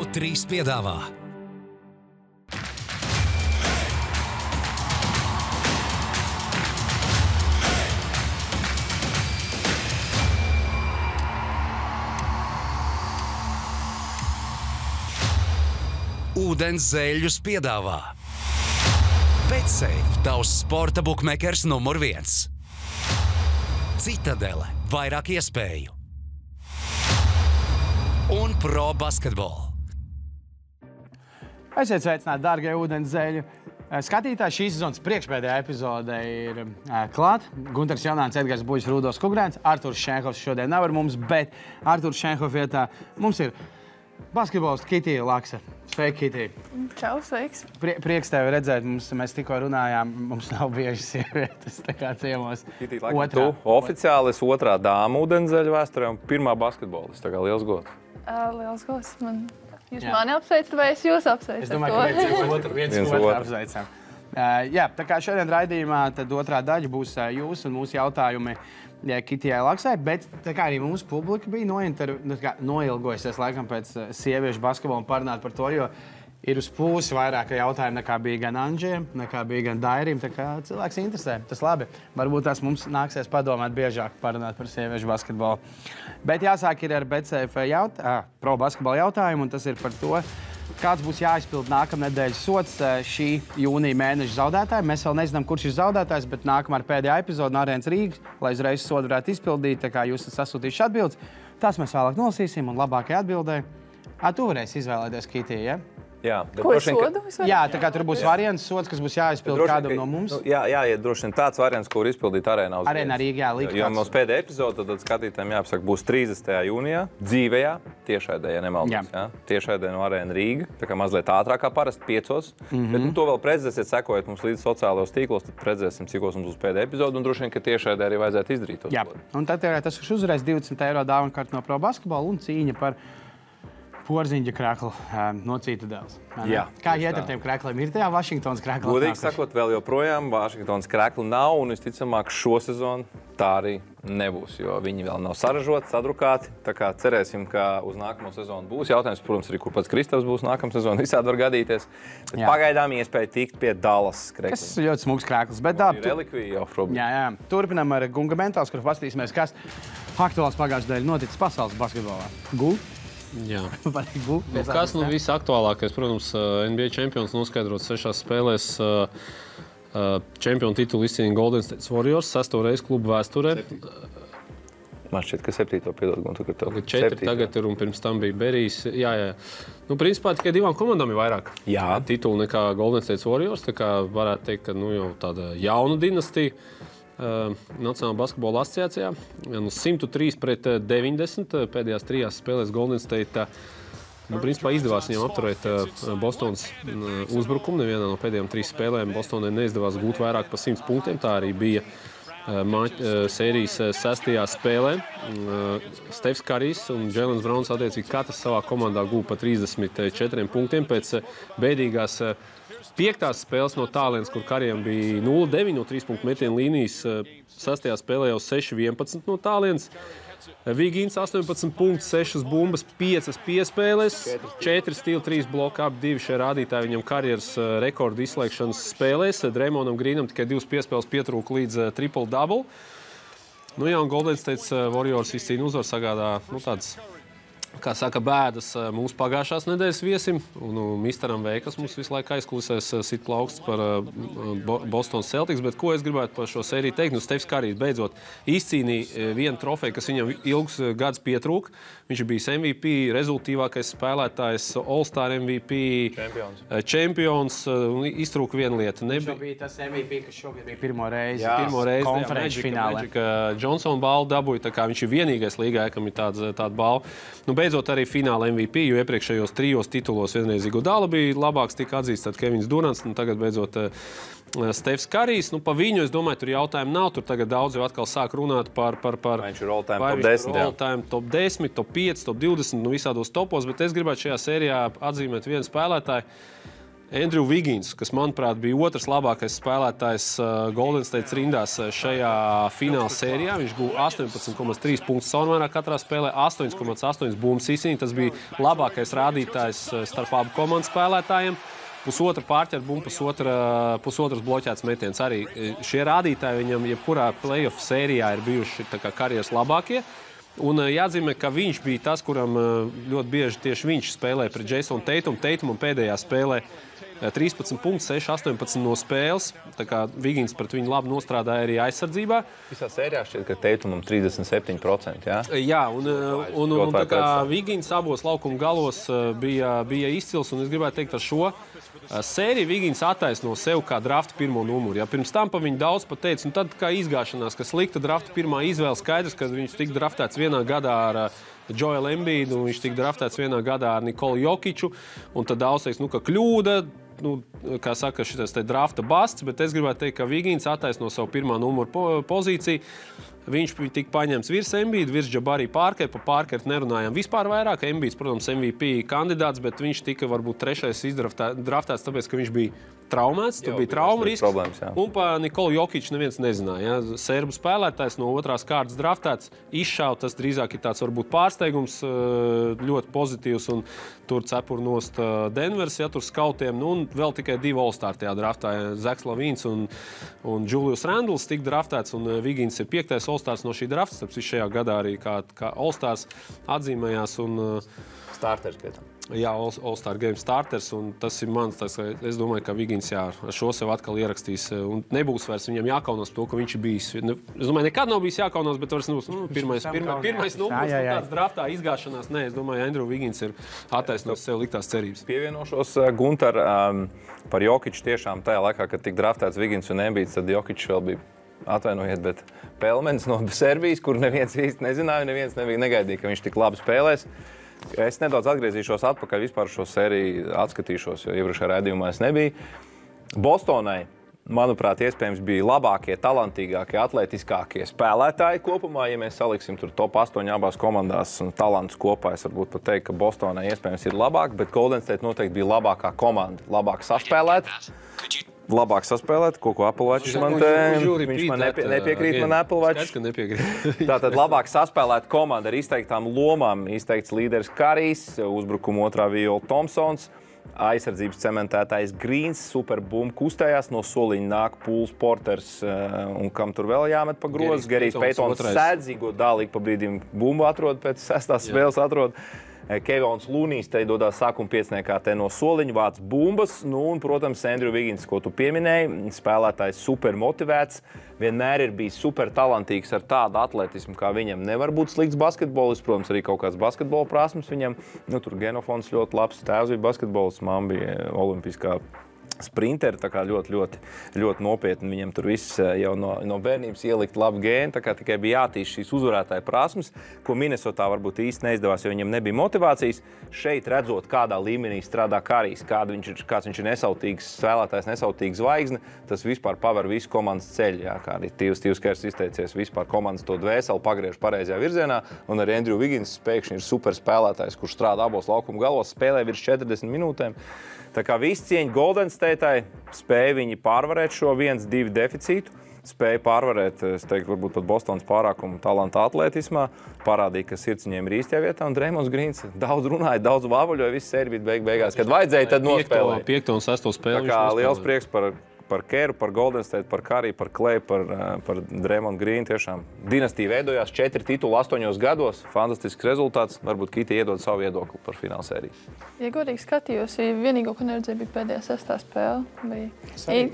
TV3 piedāvā Ūdens zēļus piedāvā BetSafe, tavs sporta bukmekers numur 1. Citadele, vairāk iespēju. Un Pro Basketball. Esiet sveicināti, dārgie ūdens zēļu skatītāji. Šīs sezonas priekšpēdējā epizode ir klāt. Gunters Jaunāns, Edgars Buļs, Rūdos Kugrēns. Arturs Šenhovs šodien nav ar mums, bet Arturs Šenhova vietā mums ir basketbolists Kitija Laksa. Sveiki, Kitija. Čau, sveiks. Prieks tevi redzēt. Mēs tikko runājām, mums nav bieži sievietes tā kā ciemos. Kitija, laikam tu oficiāli esi otrā dāma ūdenszeļu vēsturē un pirmā basketbolista. Tā kā liels gods. Liels gods. Jūs mani apsveicat vai es jūs apsveicu? Es domāju, ka viens otru apsveicam. Jā, tā kā šodien raidījumā tad otrā daļa būs jūs un mūsu jautājumi Kitijai Laksai, bet tā kā arī mūsu publika bija noilgojusies laikam pēc sieviešu basketbola un parunāt par to, jo ir uz pusi vairāk jautājumu nekā bija gan Anģiem, nekā bija gan Dairim, tā kā cilvēks interesē. Tas labi. Varbūt tās mums nāksies padomāt biežāk parunāt par sieviešu basketbolu. Bet jāsāk ir ar BetSafe Pro basketbola jautājumu, un tas ir par to, kāds būs jāizpild nākamnedēļas sots šī jūnija mēneša zaudētājiem. Mēs vēl nezinām, kurš ir zaudētājs, bet nākamā ir pēdējā epizode no Arēnas Rīgas, lai uzreiz sodu varētu izpildīt, tā kā jūs esat sasūtījuši atbildes. Tās mēs vēlāk nolasīsim un labākajai atbildēji. Tu varēsi izvēlēties, Kitija, ja? Jā, ko sodu? Jā, tā kā tur būs variants sods, kas būs jāizpild kādam no mums. Jā, droši vien tāds variants, ko var izpildīt Arēnā uz Arēnā Rīgā, likt. Jo mums pēdējā epizode, tad skatītājiem jāpasaka, būs 30. jūnijā, dzīvējā, tiešraidē, ja nemaldos. Jā. Tiešraidē no Arēna Rīga, tā kā mazliet ātrāk kā parasti 5. Bet to vēl redzēsiet, sekojot mums līdz sociālajos tīklos, tad redzēsim, cikos mums būs pēdējā epizode, un droši vien, ka tiešraidē arī vajadzētu izdarīt. Jā, un tad tas uzreiz 20 € dāvana no Pro Basketbola un cīņa par porziņģa kreklu no Citadeles. Jā. Kā iet ar tiem krekliem? Ir tajā Vašingtonas krekla? Godīgi sakot, vēl joprojām Vašingtonas krekla nav, un visticamāk šo sezonu tā arī nebūs, jo viņi vēl nav saražoti, sadrukāti. Tā kā cerēsim, ka uz nākamo sezonu būs. Jautājums, protams, arī kur pats Kristaps būs nākamā sezona, visādi var gadīties. Bet pagaidām iespēja tikt pie Dallas krekla. Kas ir ļoti smugs krekls. Bet relikvija jau problēma. Jā. Turpinām ar Gunga Mentāls, kur paskatīsimies, kas aktuāls pagājušajā dēļ noticis pasaules basketbolā. Gul? Jā. Kas visaktuālākais? Protams, NBA čempions noskaidrots 6 spēlēs. Čempionu titulu izcīnīja Golden State Warriors 6. reizi klubu vēsturē. Man šķiet, ka 7. piedod. 4 tagad ir un pirms tam bija Berijs. Jā. Principā tikai 2 komandām ir vairāk titulu nekā Golden State Warriors. Tā kā varētu teikt, ka jau tāda jauna dinastija. Nacionālā basketbola asociācijā. 103-90 pēdējās 3 spēlēs Golden State. Principā izdevās viņam apturēt Bostonas uzbrukumu. Nevienā no pēdējām 3 spēlēm Bostonai neizdevās gūt vairāk par 100 punktiem. Tā arī bija sērijas 6. spēlē. Stefs Karijs un Jēlens Brauns attiecīgi katrs savā komandā gūpa pa 34 punktiem pēc bēdīgās 5. spēles no tālienes, kur Karijam bija 0-9 no 3 punktu metienu līnijas. 6. spēlē jau 6-11 no tālienes. Vigīns 18 punktus, 6 bumbas, 5 piespēles, 4 stila, 3 bloka, ap 2 šie rādītāji viņam karjeras rekordu izslēgšanas spēlēs. Draymondam Greenam tikai 2 piespēles pietrūka līdz triple-double. Un Golden State Warriors izcīna uzvaru, sagādā tāds, kā saka, bēdas mūsu pagājušās nedēļas viesim. Un Misteram V, kas mums visu laiku aizkulisēs sit plauksts par Bostonas Celtics. Bet ko es gribētu par šo sēriju teikt? Stefs Karijs beidzot izcīnīja vienu trofeju, kas viņam ilgus gadus pietrūka. Viņš ir bijis MVP, rezultīvākais spēlētājs, All-Star MVP, čempions. Iztrūka viena lieta. Viņš bija tas MVP, kas šogad bija pirmo reizi konferenču finālē. Johnson balvu dabūja, tā kā viņš ir vienīgais līgā, kam ir tāda balva. Beidzot arī fināla MVP, jo iepriekšējos 3 titulos vienreiz Iguodala bija labāks, tika atzīsts tad Kevins Durants, tagad beidzot Stefs Karijs. Pa viņu, es domāju, tur jautājumu nav. Tur tagad daudz jau atkal sāk runāt par viņš ir all-time top 10. All-time top 10, top 5, top 20, visādos topos, bet es gribētu šajā sērijā atzīmēt vienu spēlētāju. Andrew Wiggins, kas, manuprāt, bija otrs labākais spēlētājs Golden State rindās šajā fināla sērijā. Viņš guva 18,3 punktus savukārt katrā spēlē, 8,8 bumbas izcīnīja. Tas bija labākais rādītājs starp abu komandu spēlētājiem. Pusotra pārķer bumbu, pusotras bloķēts metiens. Arī šie rādītāji viņam jebkurā playoff sērijā ir bijuši tā kā karjeras labākie. Un jāatzīmē, ka viņš bija tas, kuram ļoti bieži tieši viņš spēlēja pret Jasonu Taitumu. Taitumam pēdējā spēlē 13 punktus, 6-18 no spēles. Tā kā Wiggins pret viņu labi nostrādāja arī aizsardzībā. Visā sērijā šķiet, ka Taitumam 37%, jā? Jā, un tā kā Wiggins abos laukuma galos bija izcils, un es gribētu teikt ar šo sēriju Wiggins attaisno sev kā drafta pirmo numuru. Ja pirms tam pa viņu daudz pateica, un tad kā izgāšanās, ka slikta drafta pirmā izvēle skaidrs, kad viņš tika draftēts vienā gadā ar Joelu Embiidu, un viņš tika draftēts vienā gadā ar Nikolu Jokiču, un tad daudz teiks, ka kļūda, kā saka, šitais te drafta basts, bet es gribētu teikt, ka Wiggins attaisno savu pirmā numuru pozīciju. Viņš tika paņemts virs Embiida, virs Jabari Parkera. Par Parkeru nerunājām vispār vairāk. Embiids, protams, MVP kandidāts, bet viņš tika varbūt trešais draftēts, tāpēc, ka viņš bija traumēts. Tur bija trauma risks. Un par Nikolu Jokiču neviens nezināja. Ja? Serbu spēlētājs no otrās kārtas draftēts, izšāva. Tas drīzāk ir tāds varbūt pārsteigums, ļoti pozitīvs. Un tur cepur nost Denvers, ja tur skautiem. Un vēl tikai 2 All-Star tajā draftā. Zaks Lavīns un Julius Randles tika draftēts, un Wiggins ir 5. All-Stars no šī drafta. Tāpēc šajā gadā arī kā All-Stars atzīmējās. Starters pie tam. Jā, All-Star Game starters, un tas ir mans. Es domāju, ka Wiggins ar šo sev atkal ierakstīs. Un nebūs vairs viņam jākaunās to, ka viņš ir bijis. Es domāju, nekad nav bijis jākaunās, bet vairs nebūs pirmais numurs tāds draftā izgāšanās. Nē, es domāju, Andrew Wiggins ir attaisnojis sev liktās cerības. Pievienošos, Guntar, par Jokiču tiešām tajā laikā, kad tika draftēts Wiggins un Embiids, tad Jokičs vēl bija, atvainojiet, bet Pelmens no Serbijas, kur neviens īsti nezināja, neviens negaidīja, ka viņš tik labi spēlēs. Es nedaudz atgriezīšos atpakaļ, vispār šo sēriju atskatīšos, jo iepriekšējā raidījumā es nebiju. Bostonai, manuprāt, iespējams bija labākie, talantīgākie, atletiskākie spēlētāji kopumā. Ja mēs saliksim tur top 8 abās komandās un talantus kopā, es varbūt pat teiktu, ka Bostonai iespējams ir labāk, bet Golden State noteikti bija labākā komanda, labāk saspēlēt, ko Apelvačs man te... Viņš man nepiekrīt, man Apelvačs. Tātad labāk saspēlēt komanda ar izteiktām lomām, izteikts līderis Karijs, uzbrukuma otrā viola Thompsons, aizsardzības cementētājs Greens, superbumba kustējās, no soliņa nāk Pools, Porters un kam tur vēl jāmet pa grozu. Gerijs Paytons sēdzīgo dālīgi pa brīdim bumbu atrod, pēc 6. spēles atrod. Kevons Lūnijs te dodās sākuma piecniekā te no soliņa, vāc bumbas, un, protams, Andrew Wiggins, ko tu pieminēji, spēlētājs super motivēts, vienmēr ir bijis super talantīgs ar tādu atletismu, kā viņam nevar būt slikts basketbolists, protams, arī kaut kāds basketbola prasmes viņam, tur genofons ļoti labs, tēvs bija basketbolists, mamma bija olimpiskā sprinteri, tā kā ļoti nopietni viņam tur viss jau no bērnības ielikt labu gēnu, tā kā tikai bija jātīst šīs uzvarētāja prasmes, ko Minnesotā varbūt īsti neizdevās, jo viņam nebija motivācijas. Šeit redzot, kādā līmenī strādā Karijs, kāds viņš ir nesautīgs spēlētājs, nesautīgs zvaigzne, tas vispār paver visu komandas ceļu. Jā, kā arī Tīvs Kers izteicies, vispār komandas to dvēseli pagriež pareizajā virzienā, un arī Andrew Wiggins pēkšņi ir super spēlētājs, kurš strādā abos laukuma galos, spēlē virs 40 minūtēm. Tā kā visi cieņi Golden State'ai, spēja viņi pārvarēt šo 1-2 deficītu, spēja pārvarēt, es teiktu, varbūt pat Bostonas pārākumu talanta atletismā, parādīja, ka sirds viņiem ir īstajā vietā, un Draymonds Greens daudz runāja, daudz vāvuļoja, viss sērija bija beigās, kad vajadzēja, tad nospēlēja. 5. un 6. spēli. Tā kā liels prieks par Keru, par Golden State, par Kariju, par Klay, par Draymond Green. Tiešām dinastija veidojās 4 titulu 8 gados. Fantastisks rezultāts. Varbūt Kiti iedod savu viedokli par finālsēriju. Ja godīgi skatījos, vienīgo, ko neredzēju, bija pēdējā 6. spēle.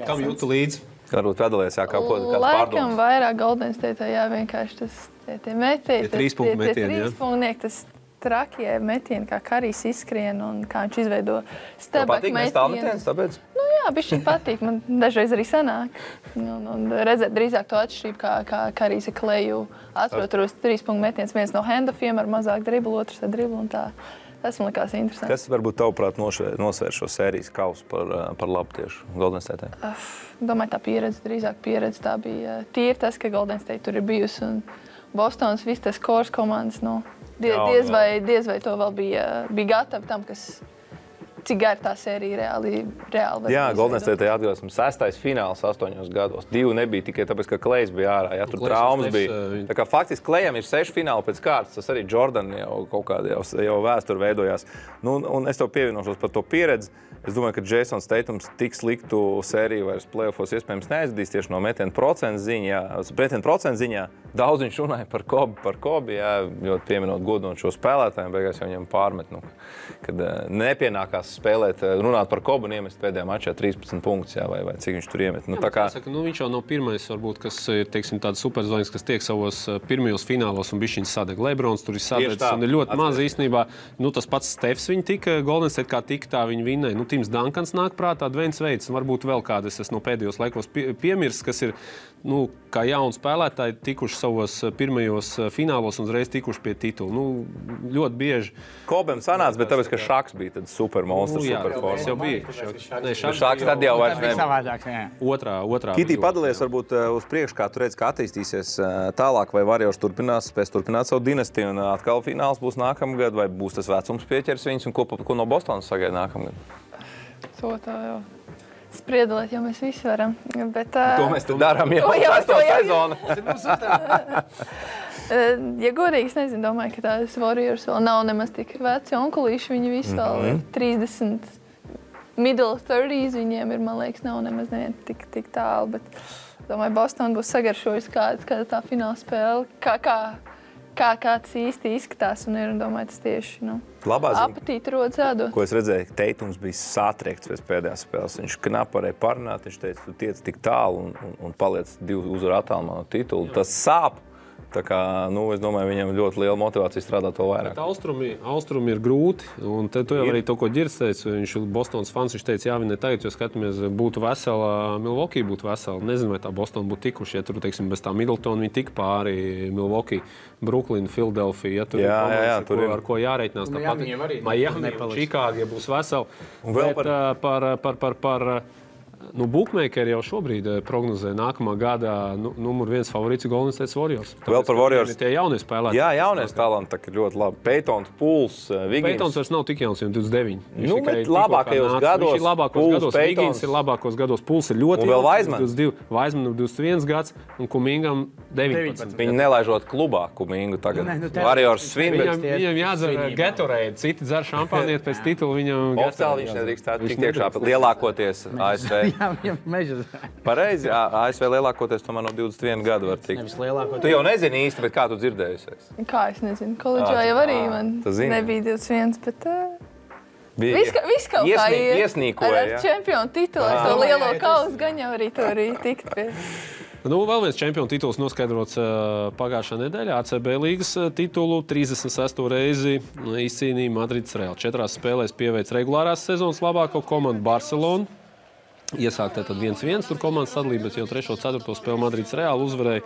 Kam jūtu līdzi? Varbūt atdalies, jā, kāds pārdoms. Laikam vairāk Golden State, jā, vienkārši tie metieni. Tie 3 punktu metieni, jā. Tas trakie metieni, kā Karijs izskrien un kā viņš izveido stebak metienus. Metienus, tāpēc? Nu jā, bišķi patīk. Man dažreiz arī sanāk. Un redzēt drīzāk to atšķirību, kā Karijs ar Kleju atrod 3 punktu metienus. Viens no handoffiem ar mazāk driblu, otrs ar driblu un tā. Tas man likās interesanti. Kas varbūt tavuprāt nosvēr šo sērijas kausu par labu tieši Golden State? Domāju, tā pieredze, drīzāk pieredze. Tā bija tīri tas, ka Golden State tur ir bijusi un Bostonas viss tas kors komandas, diez vai to vēl bija gatavi tam, kas cik gara tā sērija reāli Jā, Golden State atgādās, 6. fināls 8 gados. 2 nebija tikai tāpēc, ka Klejs bija ārā. Ja, tur traumas bija. Tā kā faktiski Klejam ir 6 fināli pēc kārtas. Tas arī Jordan jau kaut kāda jau vēsture veidojās. Nu, un es tev pievienošos par to pieredzi. Es domāju, ka Jasons Tatums tik sliktu sēriju vairs play-offos iespējams neaizdīs tieši no metienu procentu ziņā. Daudz viņš runāja par Kobi, jā, ļoti pieminot godinot šo spēlētājiem, beigās jau viņam pārmet, kad nepienākās spēlēt, runāt par Kobu un iemest pēdējā mačā 13 punktus, jā, vai cik viņš tur iemet. Viņš jau nav pirmais, varbūt, kas ir, teiksim, tāds superzvaigznes, kas tiek savos pirmajos finālos un bišķiņas sadeg. Lebrons tur ir sadegts un ir ļoti maz īstenībā. Tas pats Stefs viņa tika, Golden State kā tika, tā viņa vinnēja. Tims Dankans nāk prātā, Dveins Veids, varbūt vēl kādas es no pēdējos laikos piemirsts, kas ir, kā jauni spēlētāji tikuši savos pirmajos finālos un uzreiz tikuši pie titula. Ļoti bieži. Kobem sanāca, bet tāpēc, ka Šaks bija tad supermonstrs, superforma. Tas jau bija. Šaks tad jau vairs nebija. Otrā. Kitī, padalies varbūt uz priekšu, kā tu redzi, kā attīstīsies tālāk, vai Warriors spēs turpināt savu dinastiju un atkal fināls būs nākamgad, vai būs tas vecums pieķers viņus un ko no Bostonas sagaida nākamgad? To tā jau spriedalēt, jo mēs visi varam. Bet, to mēs te darām jau 6. sezonu. Ja godīgi, es nezinu, domāju, ka tās Warriors vēl nav nemaz tik veci onkulīši. Viņi visi vēl ir 30, middle 30s viņiem ir, man liekas, nav nemaz tik tālu. Bet, domāju, Boston būs sagaršojis kāda tā fināla spēle. Kā kāds īsti izskatās un ir, un domāju, tas tieši, apetīti rodas ēdot. Ko es redzēju, Teitums bija satriekts pēc pēdējās spēles. Viņš knapi varēja parunāt, viņš teica, tu tiec tik tālu un paliec 2 uzvaru attālumā no titula. Tas sāp. Tā kā, es domāju, viņam ļoti liela motivācija strādāt vēl vairāk. Austrumi ir grūti, un tu jau arī to, ko Ģirs teica, viņš ir Bostonas fans, viņš teica, jā, viņi tagad, jo skatāmies, būtu vesela, Milwaukee būtu vesela. Nezinu, vai tā Bostona būtu tikuši, ja tur, teiksim, bez tā Middletona viņi tik pāri Milwaukee, Brooklyn, Philadelphia, ja tur ir komandas, ar ko jāreitinās. Miami, Chicago, ja būs vesela. Un vēl par Bookmakeri jau šobrīd prognozē nākamā gada numur 1 favorīts Golden State Warriors. Vēl par Warriors. Tie jaunie spēlētāji. Jā, jaunies talanti ir ļoti labi. Peytons, Pools, Wiggins. Peytons vairs nav tik jauns, 29. Bet labākajos gados. Viņš ir labākos gados. Wiggins ir labākos gados. Pools ir ļoti jauns. Un vēl Wiseman. Wiseman 21 gads un Kumingam 19. Viņi nelaižot klubā Kumingu tagad. Warriors svin. Viņam jādzer Gatorade. Citi dzer šampāniet pēc titula. Viņam oficiāli viņš nedrīkstētu tikt iekšā lielākoties ASV. Pareizi, ASV lielākoties tomēr no 21 gadu var tikt. Tu jau nezini īsti, bet kā tu dzirdējusies? Kā es nezinu, koledžā jau arī man nebija 21, bet viss kaut kā iesnīkoja, ar čempionu titulu, ar to lielo kausu gan jau arī to arī tikt pie. Vēl viens čempionu tituls noskaidrots pagājušā nedēļā. ACB līgas titulu 36. reizi izcīnīja Madrids Real. 4 spēlēs pieveic regulārās sezonas labāko komandu Barcelonu. Iesākt tad 1-1, tur komandas sadalīja, bet jau 3. 4. spēli Madrids Real uzvarēja.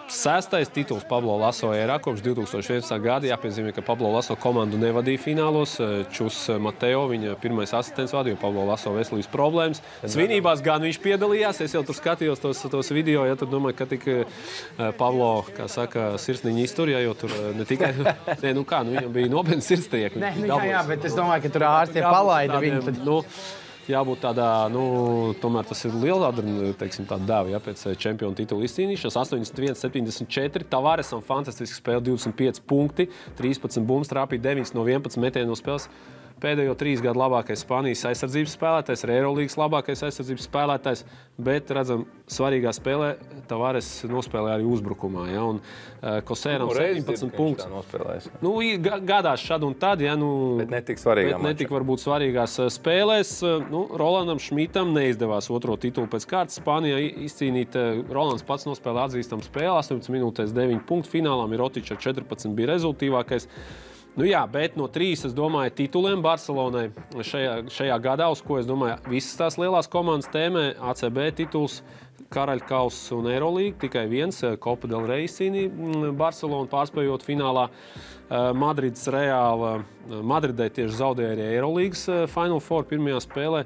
6. tituls Pablo Laso ērā kopš 2011. gada. Jāpiezīmē, ka Pablo Laso komandu nevadīja finālos. Čus Mateo, viņa pirmais asistents vadīja, Pablo Laso veselības problēmas. Svinībās gan viņš piedalījās. Es jau tur skatījos tos video, ja tur domāju, ka tik Pablo, kā saka, sirsniņa izturjā, jo tur ne tikai, viņam bija nopietni sirdstrieki. Jā, bet es domāju, ka tur ārsti palaida viņu. Jābūt tādā, tomēr tas ir liela tāda dēva, pēc čempionu titula izcīnīšanas. 81-74, Tavaresam fantastiski spēle, 25 punkti, 13 bumbas, trāpīja 9 no 11 metienu no spēles. Pēdējo 3 gadu labākais Spānijas aizsardzības spēlētājs, Eirolīgas labākais aizsardzības spēlētājs, bet, redzam, svarīgā spēlē Tavares nospēlēja arī uzbrukumā. Ja, un Kosēram 17 punktus. Gadās šad un tad, ja, bet netik svarīgā mačā. Netik varbūt svarīgās spēlēs. Rolandam Šmitam neizdevās 2. titulu pēc kārtas Spānijā izcīnīt. Rolands pats nospēlēja atzīstamu spēli, 18 minūtēs 9 punktu. Finālā Mirotičs ar 14 bija rezultīvākais. Bet no 3, es domāju, tituliem Barcelonai šajā gadā, uz ko, es domāju, visas tās lielās komandas tēmē, ACB tituls, Karaļkauss un Eirolīga, tikai viens, Copa del Rey izcīnīja Barcelonu, pārspējot finālā Madrids Reāla. Madridē tieši zaudēja arī Eirolīgas Final Four pirmajā spēlē.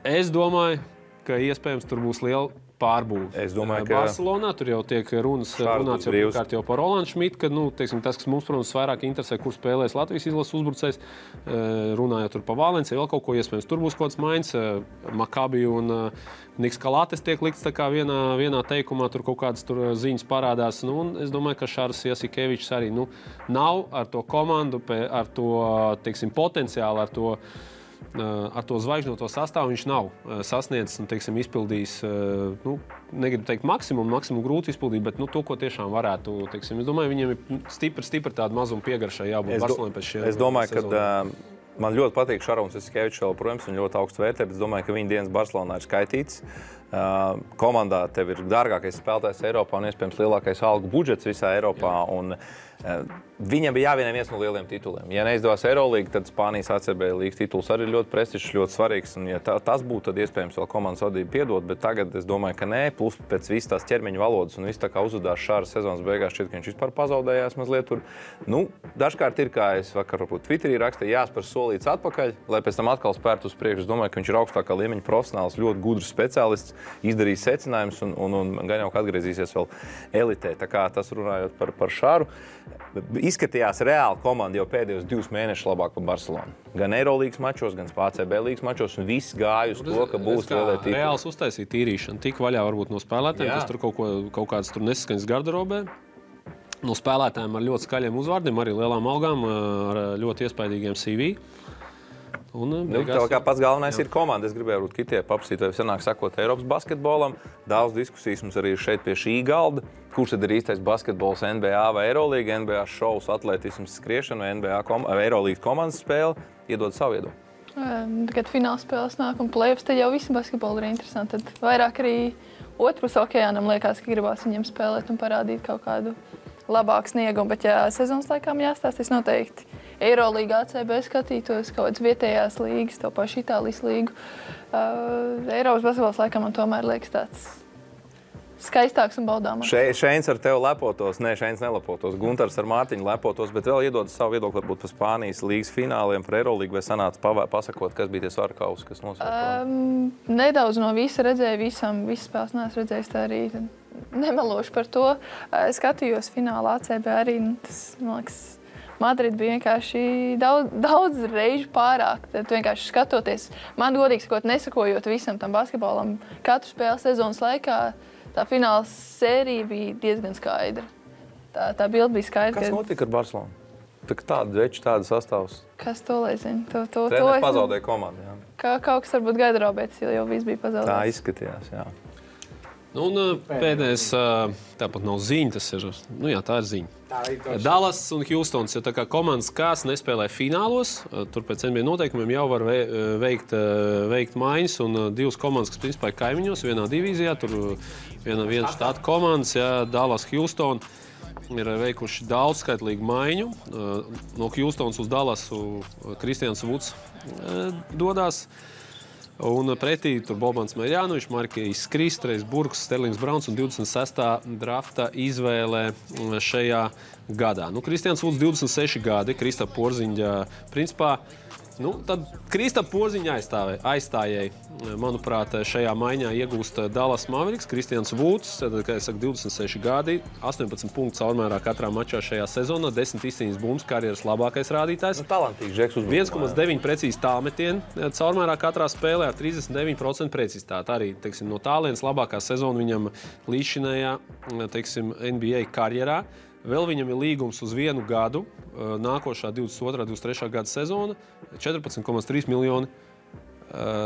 Es domāju, ka iespējams tur būs liela pārbūve. Es domāju, ka Barcelonā tur jau tiek runāts jau par Rolandu Šmitu, ka, tas, kas mums, protams, vairāk interesē, kur spēlēs Latvijas izlases uzbrucējs, runājot tur par Valenciju, vēl kaut ko iespējams. Tur būs kaut kāds maiņas, Makabi un Niks Kalātes tiek likts tā kā vienā teikumā, tur kaut kādas tur ziņas parādās. Un es domāju, ka Šārs Jasikevičs arī nav ar to komandu, ar to, potenciālu, ar to zvaigžņoto sastāvu viņš nav sasniedzis un, izpildījis, negribu teikt maksimumu grūti izpildīt, bet to, ko tiešām varētu, es domāju, viņiem ir stipri tāda mazuma piegaršai jābūt Barcelonai pēc šiem. Es domāju, ka man ļoti patīk Šarons Jasikevičs vēl, protams, un ļoti augstu vērtē, bet es domāju, ka viņa dienas Barcelonā ir skaitīts. Komandā tev ir dārgākais spēlētājs Eiropā un iespējams lielākais algu budžets visā Eiropā. Un, viņam bija jāvienē viens no lieliem tituliem. Ja neizdevās Eurolīga, tad Spānijas ACB līgas tituls arī ir ļoti prestižs, ļoti svarīgs. Un, ja tas būtu, tad iespējams vēl komandas vadība piedot, bet tagad es domāju, ka nē. Plus pēc visas tās ķermeņa valodas un viss tā kā uzvedās Šāras sezonas beigās, šķiet, ka viņš vispār pazaudējās mazliet tur. Dažkārt ir, kā es vakar Twitterī rakstīju, jāspēr solīts atpakaļ, lai pēc tam atkal spērtu uz priekšu. Es domāju, ka viņš ir augstākā līmeņa profesionāls, ļoti gudrs speciālists, izdarījis secinājumus un gan jau atgriezīsies vēl elitē. Tā kā tas runājot par Šāru. Izskatījās reāli komanda jau pēdējos 2 mēnešus labāk par Barcelonu. Gan Eirolīgas mačos, gan ACB līgas mačos, un viss gāja uz to, ka būs lielie tituli. Reāls uztaisīja tīrīšanu, tik vaļā varbūt no spēlētājiem, kas tur kaut kādas tur nesaskaņas garderobē. No spēlētājiem ar ļoti skaļiem uzvārdiem, arī lielām algām, ar ļoti iespaidīgiem CV. Tā kā pats galvenais ir komanda. Es gribēju Kitie paprasīt, vai sanāk sakot Eiropas basketbolam. Daudz diskusijas mums arī ir šeit pie šī galda. Kurš tad ir īstais basketbols, NBA vai Eirolīga, NBA šovs, atletisms, skriešana vai Eirolīgas komandas spēle? Iedod savu iedomu. Kad fināla spēles nāk un play-offs, tad jau visi basketboli ir interesanti. Tad vairāk arī otrpus okeānam liekas, ka gribās viņiem spēlēt un parādīt kaut kādu labāku sniegumu. Bet, ja sezonas laikām jāstāsta, es noteikti Eirolīga ACB skatītos, kaut kādas vietējās līgas, to pašu Itālijas līgu. Eiropas basketbols laikam man tomēr liekas tāds skaistāks un baudāmāks. Šeins ar tevi lepotos, Šeins nelepotos, Guntars ar Mārtiņu lepotos, bet vēl iedod savu viedokli varbūt par Spānijas līgas fināliem, par Eirolīgu, vai sanāca pasakot, kas bija tie svarkausi, kas nosaka? Nedaudz no visa redzēju, visas spēles neesmu redzējis, tā arī nemelošu par to. Skatījos finālā ACB arī, tas, man liekas, Madrid bija vienkārši daudz reižu pārāk. Tad vienkārši skatoties, man godīgi sakot, nesakojot visam tam basketbolam, katru spēles sezonas laikā, tā fināla sērija bija diezgan skaidra. Tā bilde bija skaidra. Kas notika ar Barcelonu? Tāda veča, tāda sastāvs. Kas to lai zina? Treneris pazaudēja komandu, jā. Kaut kas varbūt garderobēs, jo viss bija pazaudēts. Tā izskatījās, jā. Un pēdējais, tāpat nav ziņa, tas ir, tā ir ziņa. Dallas un Hjūstons ir tā kā komandas, kas nespēlē finālos, tur pēc NBA noteikumiem jau var veikt maiņas, un 2 komandas, kas principā ir kaimiņos, vienā divīzijā, tur viena štāta komandas, Dallas, Hjūston, ir veikuši daudzskaitlīgu maiņu. No Hjūstons uz Dallasu Kristians Vuds dodās. Un pretī tur Bobans Mērjānovičs, Markijs Kristreis, Burks, Sterlings Brauns un 26. drafta izvēlē šajā gadā. Kristians Vuds 26 gadi, Kristapa Porziņa principā. Tad Kristapa Porziņa aizstājēji, manuprāt, šajā maiņā iegūst Dallas Mavericks, Kristians Vuds, kā es saku, 26 gadi, 18 punktus caurmērā katrā mačā šajā sezonā, 10 izcīņas bumbas, karjeras labākais rādītājs. Talantīgs žeks uzbrukumā. 1,9 precīzi tālmetieni caurmērā katrā spēlē ar 39% precizitāti. Arī, no tālienes labākā sezona viņam līdzšinējā, NBA karjerā. Vēl viņam ir līgums uz 1 gadu, nākošā 22. 23. gada sezona, 14,3 miljoni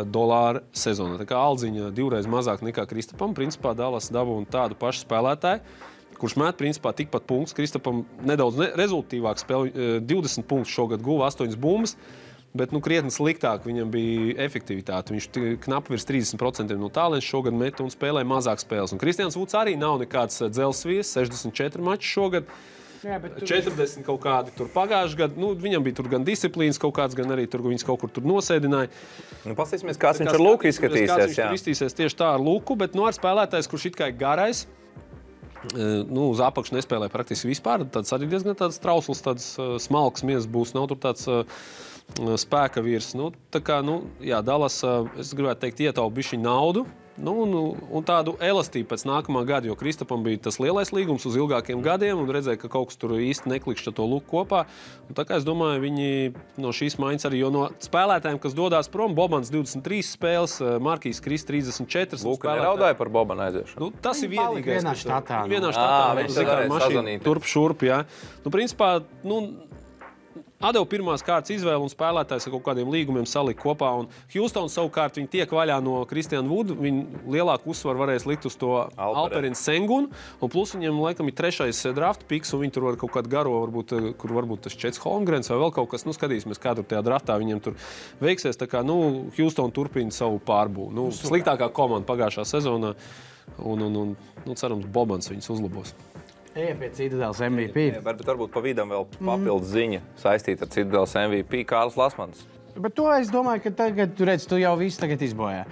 dolāru sezonā. Tā kā aldziņa 2 reizes mazāk nekā Kristapam. Principā Dallas dabūna tādu pašu spēlētāju, kurš met principā tikpat punktus. Kristapam nedaudz rezultīvāk spēlē, 20 punktus šogad guva, 8 bumbas. Bet krietni sliktāk viņam bija efektivitāte. Viņš knapi virs 30% no tālienes šogad met un spēlēja mazāk spēles. Un Kristians Vuds arī nav nekāds dzelsvies, 64 mači šogad. Jā, 40 kaut kādi tur pagājuši gadu. Viņam bija tur gan disciplīnas kaut kāds, gan arī tur viņas kaut kur tur nosēdināja. Pastīsimies, kāds viņš ar Luku izskatīsies. Kāds viņš tur izskatīsies tieši tā ar Luku, bet ar spēlētājs, kurš it kā ir garais, uz apakšu nespēlē praktiski vispār. Tāds arī diezgan tāds trausls, tāds smalks miezas būs. Nav tur tāds spēka vīrs. Dallas, es gribētu teikt, ietaupa bišķiņu naudu un tādu elastību pēc nākamā gada, jo Kristapam bija tas lielais līgums uz ilgākiem gadiem un redzēja, ka kaut kas tur īsti neklikšķa to luku kopā. Un tā kā es domāju, viņi no šīs maiņas arī, jo no spēlētājiem, kas dodās prom, Bobans 23 spēles, Markijs Krist 34. Luka neraudāja par Bobana aiziešanu. Tas ir vienīgais. Vienā štatā. Vienā štatā mašīna turp šurp, jā. Principā, atdeva pirmās kārtas izvēle un spēlētājs ar kaut kādiem līgumiem salika kopā. Un Houston savukārt viņi tiek vaļā no Kristiana Vuda. Viņi lielāku uzsvaru varēs likt uz to Alperinu Sengunu. Un plus viņiem laikam ir 3. draft piks, un viņi tur var kaut kādu garo, kur varbūt tas Čets Holmgrens vai vēl kaut kas. Skatīsimies, kā tur tajā draftā viņiem tur veiksies. Tā kā, Houston turpina savu pārbūvi. Sliktākā komanda pagājušā sezonā. Un cerams, Bobans viņus uzlabos. Ejam pie Citadeles MVP. Varbūt pa vidam vēl papildus ziņa saistīta ar Citadeles MVP Kārlis Lasmans. Bet to es domāju, ka tagad, tu jau visu tagad izbojā.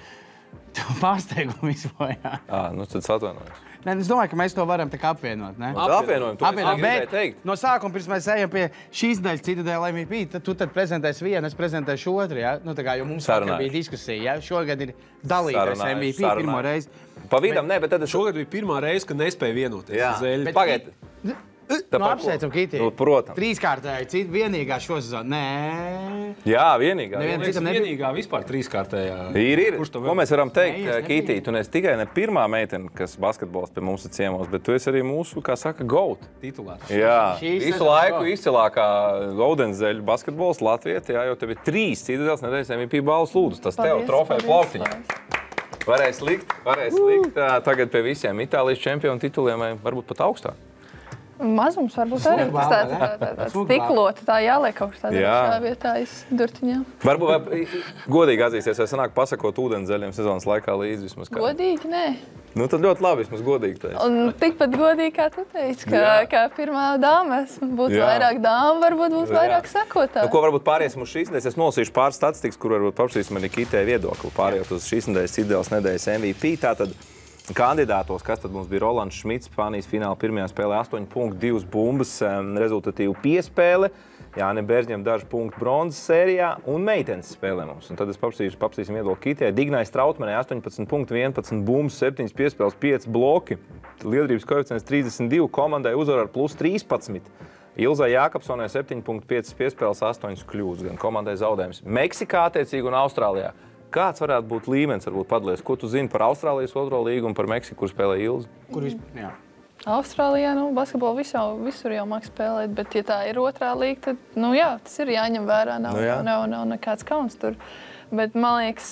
Tu pārsteigumu izbojā. Tad atvainojos. Nē, es domāju, ka mēs to varam tā kā apvienot, ne? Apvienojam, to Apvienot, es gribēju teikt. no sākuma, pirms mēs ejam pie šīs daļas Citadeles MVP, tad tu prezentēsi vienu, es prezentēšu otru, ja? Jo mums vakar bija diskusija, ja? Šogad ir dalītais MVP pirmo reizi. Pa vidam, bet tad Šogad bija pirmā reize, kad nespēja vienoties. Jā, pagaid. Apsveicam, Kiti. Protams. Trīskārtēji, vienīgā šo sezonu. Nē. Jā, vienīgā. Vienīgā vispār trīskārtējā. Ir. Ko mēs varam teikt, Kiti? Tu neesi tikai ne pirmā meitene, kas basketbols pie mums ir ciemos, bet tu esi arī mūsu, kā saka, GOAT. Titulārs. Jā, visu laiku izcilākā Gaudenzeļu basketbols Latvieta, jo tev ir 3 Citadeles nedēļas MVP balvas lūdzu. Tas tev trofeja plauktiņā. Varēs likt tagad pie visiem Itālijas čempionu tituliem, vai varbūt pat augstāk. Mazums varbūt arī tāds stiklota, tā jāliek kaut kas tādā vietā durtiņā. Varbūt godīgi atzīsties, vai sanāk pasakot ūdenzeļiem sezonas laikā līdzi vismaz kā? Godīgi, nē. Tad ļoti labi, vismaz godīgi teici. Un tikpat godīgi, kā tu teici, ka pirmā dāma būtu vairāk dāma, varbūt būtu vairāk sekotāji. Ko varbūt pāriesim uz šīs nedēļas? Es nolasīšu pāris statistikas, kur varbūt paprasīsim arī Kitē viedokli. Pārējot uz šīs Citadeles nedēļas MVP. Tātad kandidātos, kas tad mums bija Rolands Šmits, Spānijas fināla pirmajā spēlē 8 punktu, 2 bumbas, rezultatīvu piespēle. Jāni Bērzņiem daži punkti bronzas sērijā un meitenes spēlē mums. Un tad es paprasīsim viedokli Kitē. Dignai Strautmanai 18 punkti, 11 bumbas, 7 piespēles, 5 bloki. Liederības koeficients 32, komandai uzvar ar plus 13. Ilzai Jākapsonai 7,5 piespēles, 8 kļūdas, gan komandai zaudējums. Meksikā attiecīgi un Austrālijā. Kāds varētu būt līmenis, varbūt padalies? Ko tu zini par Austrālijas otro līgu un par Meksiku, kur spēlē Ilzi? Austrālijā, basketbolu visur jau māk spēlēt, bet ja tā ir otrā līga, tad, tas ir jāņem vērā, nav nekāds kauns tur. Bet, man liekas,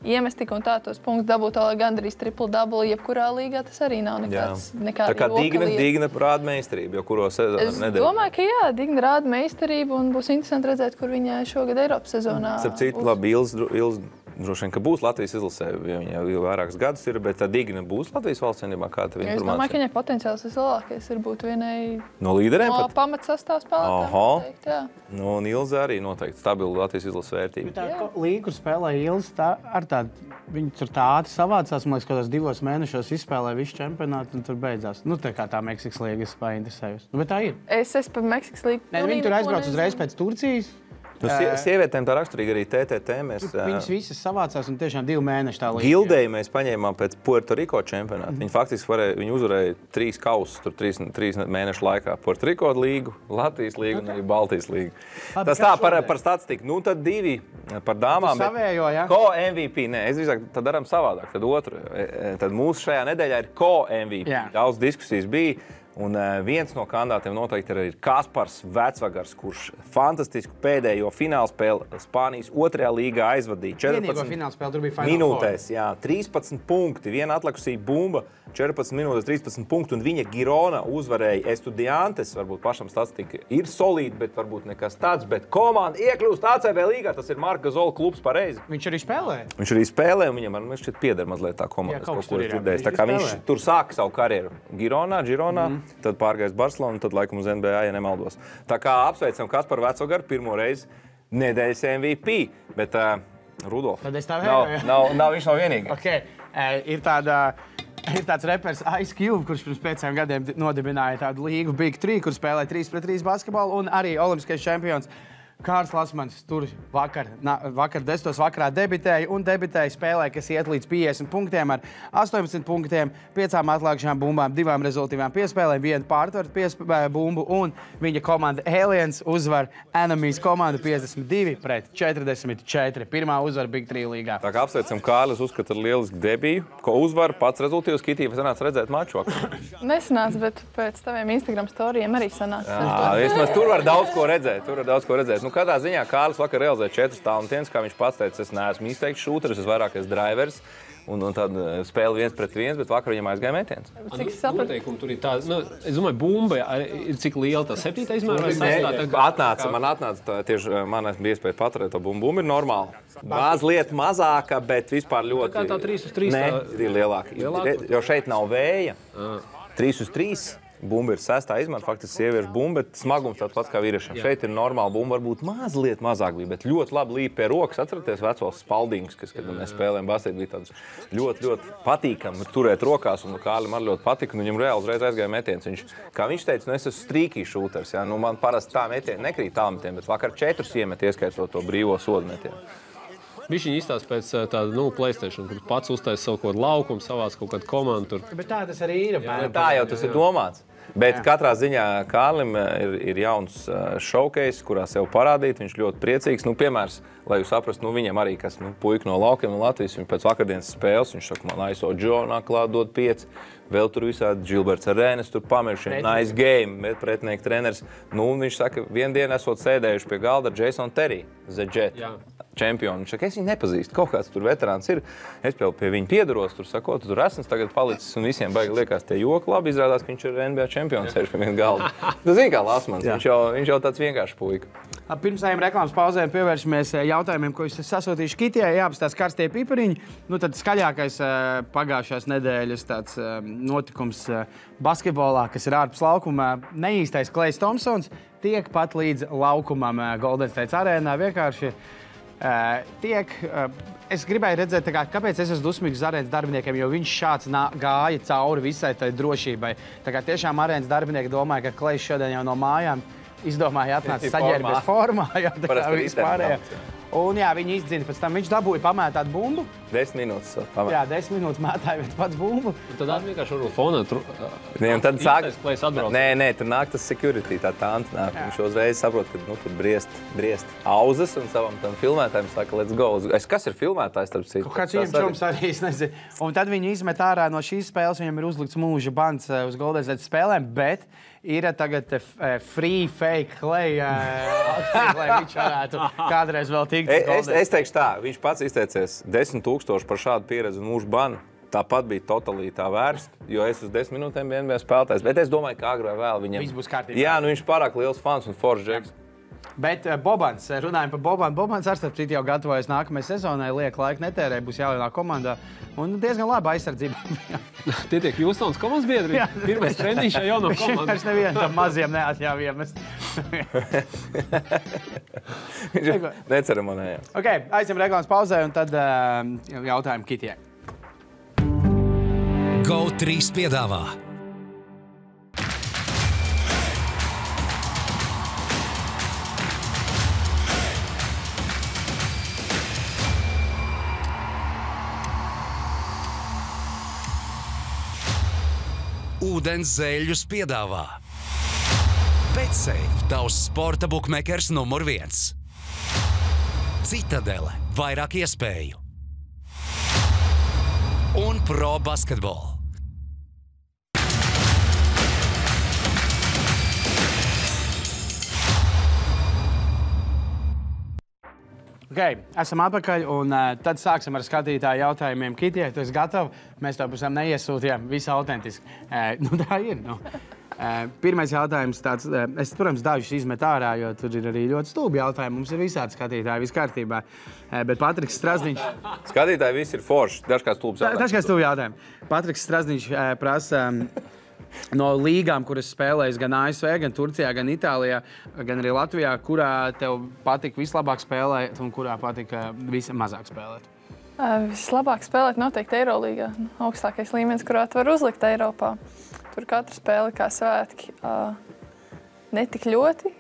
iemest tik un tā tos punktus dabūt gandrīz triple-double, jebkurā līgā tas arī nav nekāda tā kā Digna rāda meistarību, jo kuro sezonu nedēļu. Es domāju, ka Digna rāda meistarību un būs interesanti redzēt, kur viņa šogad Eiropas sezonā. Starp citu, labi, Ilzi droši vien, ka būs Latvijas izlasē, jo viņa jau vairākus gadus ir, bet tā Digna būs Latvijas valsts vienībā, kā tev informācija? Es domāju, ka viņai potenciāls vislielākais ir būt vienai no līderiem no pamatsastāv spēlētājiem. Un Ilze arī noteikti stabila Latvijas izlases vērtība. Tā līga, kur spēlē Ilze, viņi tur tā ātri savācās, man liekas, kādos 2 mēnešos izspēlē visu čempionātu un tur beidzās. Tā kā tā Meksikas līga es painteresējos. Bet tā ir. Es par Meksikas līgu. Viņi tur aizbrauc uzreiz pēc Turcijas. Sievietēm tā raksturīgi arī TTT. Viņas visas savācās un tiešām 2 mēneši tā līga. Gildēju mēs paņēmām pēc Puerto Rico čempionāta. Viņi faktiski uzvarēja 3 kausus tur 3 mēnešu laikā. Puerto Rico līgu, Latvijas līgu un arī Baltijas līgu. Tas tā par statistiku. Tad 2 par dāmām. Savējo, ja? Ko MVP? Nē, es drīzāk tad daram savādāk. Tad otru. Tad mūsu šajā nedēļā ir ko MVP. Jā. Daudz diskusijas bija. Un viens no kandidātiem noteikti ir Kaspars Vecvagars, kurš fantastisku pēdējo finālspēli Spānijas otrajā līgā aizvadīja. 14 minūtēs, 13 punkti, viena atlikusī bumba, 14 minūtes, 13 punkti, un viņa Girona uzvarēja Estudiantes. Varbūt pašam statistika ir solīta, bet varbūt nekas tāds, bet komanda iekļūst ACB līgā, tas ir Marka Zola klubs pareizi. Viņš arī spēlē? Viņš arī spēlē, un viņam šķiet pieder mazliet tā komanda. Tā kā viņš tur sāka savu karjeru Gironā. Tad pārgājis Barcelonu, tad laikam uz NBA, ja nemaldos. Tā kā apsveicam Kasparu Vecvagaru pirmo reizi nedēļas MVP, bet Rudolf, tad es tā vēju, nav viņš nav vienīgi. Okay. Ir tāds repers Ice Cube, kurš pirms 5 gadiem nodibināja tādu līgu Big 3, kur spēlē 3-3 basketbolu un arī olimpiskais čempions Kārls Lasmans tur vakar 10. vakarā debitēja spēlē, kas iet līdz 50 punktiem ar 18 punktiem, 5 atlākšām bumbām, 2 rezultīvām piespēlēm, 1 pārtvaru bumbu un viņa komanda Aliens uzvar Enemies komandu 52-44. Pirmā uzvara Big 3 līgā. Tā kā apsveicam Kārlis, uzskata lielisku debiju, ko uzvar pats rezultīvs. Kitī, vai sanāca redzēt maču vakar? Nesanāca, bet pēc taviem Instagram storijiem arī sanāca. Vismaz tur var daudz ko redzēt. Nu, katrā ziņā Kārlis vakar realizēja 4 talantienes, kā viņš pats teica, es neesmu izteikts šūteris, es vairāk esmu drivers. Un tad spēle 1 pret 1, bet vakar viņam aizgāja metiens. Cik sapratu? Tur ir tā, es domāju, bumba ir cik liela tā 7. izmēra? Man atnāca tieši, man bija iespēja paturēt to bumbu. Bumba ir normāla. Mazliet mazāka, bet vispār ļoti... Tā kā tā 3 uz 3? Nē, ir lielāka. Jo šeit nav vēja. 3 uz 3. Bumba ir 6. izmēra, faktiski sieviešu bumba, bet smagums tāds pats kā vīriešiem. Šeit ir normāla bumba, varbūt mazliet mazāk bija, bet ļoti labi līp pie rokas. Atceraties vecos spaldīgus, kas, kad mēs spēlējām basketu, bija tāds ļoti, ļoti patīkami turēt rokās, un Kārlim arī ļoti patika, un viņam reāli uzreiz aizgāja metiens. Kā viņš teica, es esmu strīkī šūters, man parasti tā metieni nekrīt tālmetiem, bet vakar 4 iemet, ieskaitot to brīvo sodu metienu. Viņš viņa izstāsta pēc tāda, PlayStation, kur pats uztais savu kaut kādu laukumu, savās kaut kādu komandu. Bet tā tas arī ir. Tā jau tas ir domāts. Bet katrā ziņā Kārlim ir jauns showcase, kurā sev parādīt. Viņš ļoti priecīgs. Piemērs, lai jūs saprastu, viņam arī, kas puika no laukiem no Latvijas, viņš pēc vakardienas spēles, viņš saka, man ISO Džonā klāt dod 5. Vēl tur visādi Gilberts Arēnes, tur pamiršiem, nice game, bet pretinieki treneris. Viņš saka, vienu dienu esot sēdējuši pie galda ar Jason Terry, The Jet. Čempionu. Viņš saka, es viņu nepazīstu. Kaut kāds tur veterāns ir. Es pie viņa piedaros, tur sakot, tur esmu tagad palicis un visiem baigi liekas tie joki. Labi, izrādās, ka viņš ir NBA čempions, sēž pie viena galda. Tu zini, kā Lasmans, viņš jau tāds vienkārši puika. Pirms reklāmas pauzēm pievēršamies jautājumiem, ko jūs sasūtījuši Kitijai. Jāapstās karstie pipariņi. Tad skaļākais pagājušās nedēļas tāds notikums basketbolā, kas ir ārpus laukuma. Neīstais Klejs Thompsons tiek pat līdz laukumam Golden State arēnā. Vienkārši es gribēju redzēt, kāpēc es esmu dusmīgs uz arēnas darbiniekiem, jo viņš šāds gāja cauri visai tai drošībai. Tiešām arēnas darbinieki domāja, ka Klejs šodien jau no mājām izdomāja atnāca saģērbies formā. Vispārējā. Un viņi izdzina, pēc tam viņš dabūja pamētāt bumbu. 10 minūtes pamētāt. 10 minūtes mētāja viens pats bumbu. Tad vienkārši varbūt fonā tad sāk... Nē, tur nāk tas security, tā tāns nāk. Viņš uzreiz saprot, ka tur briest auzas un savam tam filmētājiem saka, let's go. Kas ir filmētājs, starp citu? Kāds viņam čoms arī, es nezinu. Un tad viņi izmet ārā no šīs spēles, viņam ir uzlikts mūža bans uz Golden State spēlēm, bet ir tagad free fake Klej, lai viņš varētu kādreiz vēl tikt. Es teikšu tā, viņš pats izteicies 10 000 par šādu pieredzi un mūžu banu. Tāpat bija totāli tā vērsta, jo es uz 10 minūtēm biju NBA spēlētājs. Bet es domāju, ka agrāk vēl viņam... Viss būs kārtībā. Jā, viņš pārāk liels fans un foršs džeks. Bet Bobans, runājam par Bobanu. Bobans ar starp citu jau gatavojas nākamajai sezonai, liek laiku netērē, būs jālielā komandā. Un diezgan laba aizsardzība. Tie tiek Hjūstons komandas biedri. Pirmais treniņš jau no komandas. Viņš nevienu tam maziem neatļauj iemest. Neceremonējā. Ok, aizjam reklāmas pauzē un tad jautājumu Kitijai. GO3 piedāvā Ūdens zēļus piedāvā BetSafe, tavs sporta bukmekers numur 1. Citadele, vairāk iespēju. Un Pro Basketball. Okay, esam atpakaļ un tad sāksim ar skatītāju jautājumiem. Kitijai, tu esi gatava? Mēs to pusam neiesūtījām, visu autentiski. Tā ir. Pirmais jautājums tāds, es, protams, dažus izmetu ārā, jo tur ir arī ļoti stulbi jautājumi. Mums ir visādi skatītāji, viss kārtībā. Bet Patriks Strazdiņš... Skatītāji visi ir forši, dažkārt stulbs jautājumi. Dažkārt stulbi jautājumi. Patriks Strazdiņš prasa... No līgām, kuras spēlējas gan ASV, gan Turcijā, gan Itālijā, gan arī Latvijā, kurā tev patika vislabāk spēlēt un kurā patika vismazāk spēlēt? Vislabāk spēlēt noteikti Eirolīgā. Augstākais līmenis, kurā tu var uzlikt Eiropā. Tur katra spēle kā svētki. Ne tik ļoti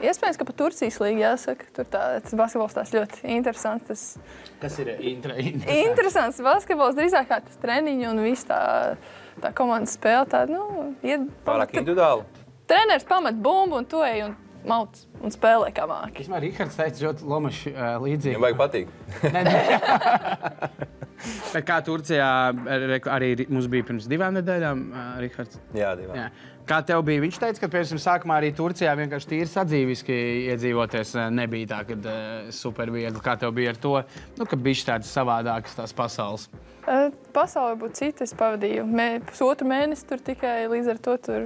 Iespējams, ka pa Turcijas līgu jāsaka. Tur tas basketbols tās ļoti interesants. Kas ir Interesants basketbols, drīzāk kā tas treniņi un viss tā komandas spēle. Pārāk individuāli. Treneris pamet bumbu un tu ej un mauc un spēlē kā māki. Vismaz Rihards teica ļoti Lomaši līdzīgi. Viņam vajag patīk. Bet kā Turcijā arī mums bija pirms 2 nedēļām, Rihards? Jā, 2. Jā. Kā tev bija? Viņš teica, ka pirms sākumā arī Turcijā vienkārši tīri sadzīviski iedzīvoties nebija tā, kad super viegli. Kā tev bija ar to, ka bija tādas savādākas tās pasaules? Pasaule būtu cita. Es pavadīju pusotru mēnesi tur tikai līdz ar to tur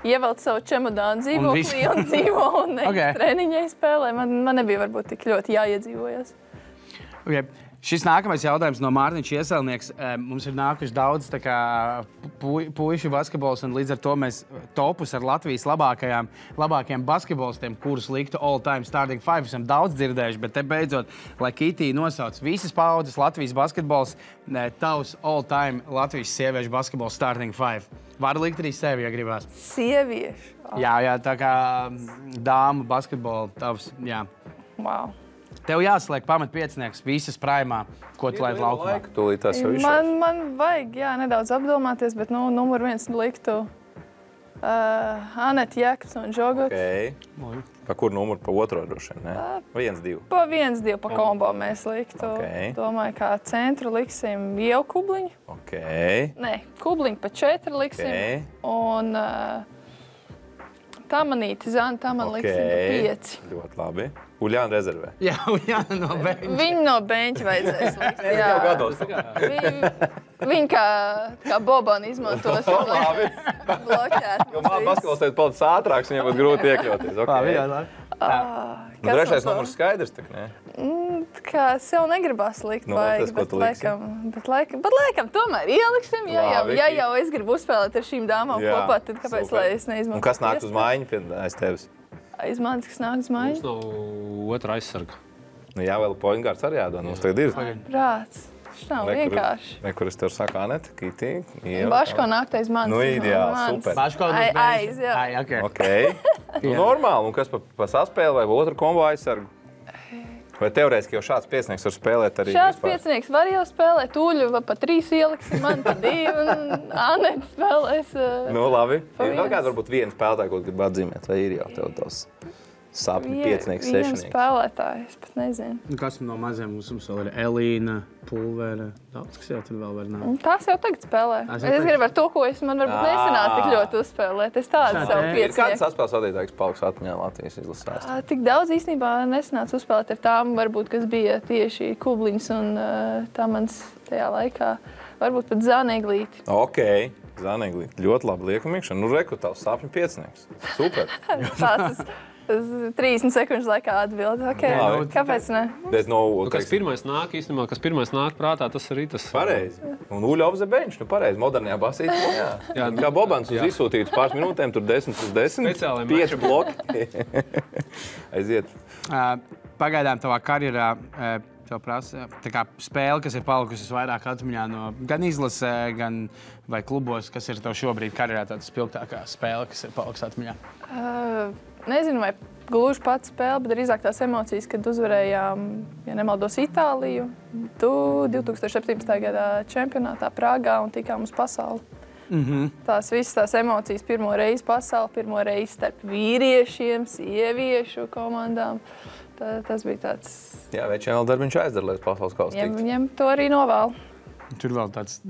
ievelc savu čemodānu dzīvoklī un dzīvo un treniņai spēlē. Man nebija varbūt tik ļoti jāiedzīvojas. Okay. Šis nākamais jautājums no Mārtiņš Ieselnieks. Mums ir nākuši daudz puišu basketbols, un līdz ar to mēs topus ar Latvijas labākajiem basketbolistiem, kurus liktu all-time starting five, esam daudz dzirdējuši, bet te beidzot, lai Kitī nosauc visas paudzes Latvijas basketbols, tavs all-time Latvijas sieviešu basketbols starting five. Var likt arī sevi, ja gribās. Sieviešu? Jā, tā kā dāmu basketbolu tavs, jā. Wow. Tev jāsliek pamatpiecinieks visas praimā, ko tu laid laukumā. Man vajag, nedaudz apdomāties, bet numur 1 liktu Anete Jēkabs un Žogots. Okay. Pa kur numuru? Pa otro droši vien, ne? 1-2. Pa 1-2 pa kombo mēs liktu. Okay. Domāju, kā centru liksim Ievu Kubliņu. Okay. Nē, Kubliņu pa 4 liksim. Okay. Un Tamanīti, Zana Taman liksim pa 5. Ļoti labi. Uljāna rezervē. Jā, Uljāna no beņķa. Viņu no beņķa vajadzēs likt. Jā, jau gados. Viņi kā Bobani izmantos. Labi. Bloķēt. Jo basketbols teikt palicis ātrāks, viņiem būtu grūti iekļauties. Okay. Trešais numurs skaidrs, tak ne? Kā sev negribas likt baigi, bet laikam tomēr ieliksim. Ja jau es gribu uzspēlēt ar šīm dāmām kopā, tad kāpēc lai es neizmantotu? Un kas nāks uz mājiņu aiz tevis? Aiz manis, kas nāk uz mājiņu? Mums nav otra aizsarga. Nu jā, vēl pointgārds arī jādod. Mums tagad ir. Prāts. Šis nav vienkārši. Kur es tev saku, Anete, Kitī. Baško nāk aiz manis. Nu, ideāli, super. Baško aiz, jā. Okay. Nu, normāli. Un kas pa saspēli vai otru kombo aizsargu? Vai teorētiski jau šāds piecinieks var spēlēt arī? Šāds piecinieks var jau spēlēt. Uļu pa 3 ieliksim, man pa 2 un Anete spēlēs. Nu, labi. Ir vēl kāds varbūt viens spēlētāji, ko grib atzīmēt, vai ir jau tev tos sapņu piecinieks, sešnieks? Viens spēlētāji, es pat nezinu. Kas no maziem mums vēl ir Elīna, Pulvera, daudz, kas jau tur vēl var nākt. Tās jau tagad spēlē. Es gribu ar to, ko man varbūt nesanāca tik ļoti uzspēlēt. Es tādu savu piecinieku. Kāds saspēles vadītājs paliks atmiņā Latvijas izlasēs? Tik daudz īstenībā nesanāca uzspēlēt ar tām, varbūt, kas bija tieši Kubliņas un Tamans tajā laikā. Varbūt pat Zanēglīti. Okay. Zanēglīti. Ļoti labi liekam iekšā. Nu, reku tavs sapņu piecinieks. Super. Tāds 30 sekundžu laikā atbild. Okay. Kāpēc ne? Bet, kas pirmais nāk prātā, tas arī tas. Pareizi. Un Uļa off the bench, pareizi. Modernajā basītī. Jā. Kā Bobans uz izsūtītu pāris minūtēm, tur 10/10. 5 bloki. Aiziet. Pagaidām tavā karjerā tev prasa tā kā spēle, kas ir palikusi vairāk atmiņā no gan izlasē, gan vai klubos, kas ir tev šobrīd karjerā tāda spilgtākā spēle, kas ir palikusi atmiņā? Nezinu, vai gluži pats spēle, bet drīzāk tās emocijas, kad uzvarējām, ja nemaldos, Itāliju 2017. Gadā čempionātā Prāgā un tikām uz pasauli. Tās visas tās emocijas pirmo reizi pasauli, pirmo reizi starp vīriešiem, sieviešu komandām. Tas bija tāds... Jā, večiem vēl darbiņš aizdara, lai pasaules kausa tiktu. Viņam to arī novēl. Tur vēl tāds,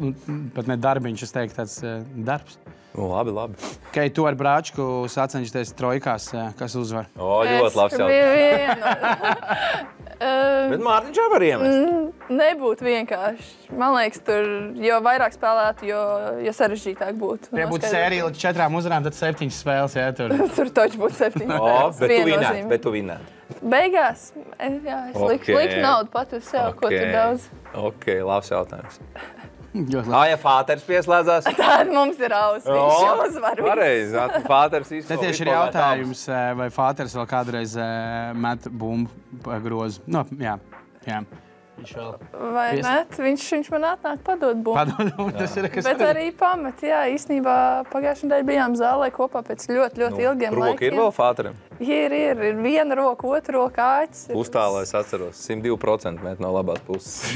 pat ne darbiņš, es teiktu, tāds darbs. Nu, labi. Kai tu ar Brāčku sacenšties trojkās, kas uzvar? Ļoti labs jautājums. Bet Mārtiņš jau var iemest. Nebūtu vienkārši. Man liekas, tur jo vairāk spēlētu, jo sarežģītāk būtu. Ja būtu sērija līdz 4 uzvarām, tad 7 spēles, jā, tur. Tur taču būtu 7 spēles. Bet tu vinētu. Beigās, jā, es liktu naudu pat uz sev, ko tur daudz. Ok, labs jautājums. Ja Fāters pieslēdzās? Tāda mums ir viņš uzvar. Pareizi, Fāters īstenībā. Te tieši ir jautājums, vai Fāters vēl kādreiz met bumbu grozu. Nu, jā. Vai ne? Viņš man atnāk padod bumbu. Tas ir, kas Bet arī pamet, jā, īstenībā pagājušajā nedēļā bijām zālē kopā pēc ļoti ilgiem Roka laikiem. ir vēl fāterim? Ir viena roka, otra roka āķis. Uztālā es atceros, 102% mēt no labās puses.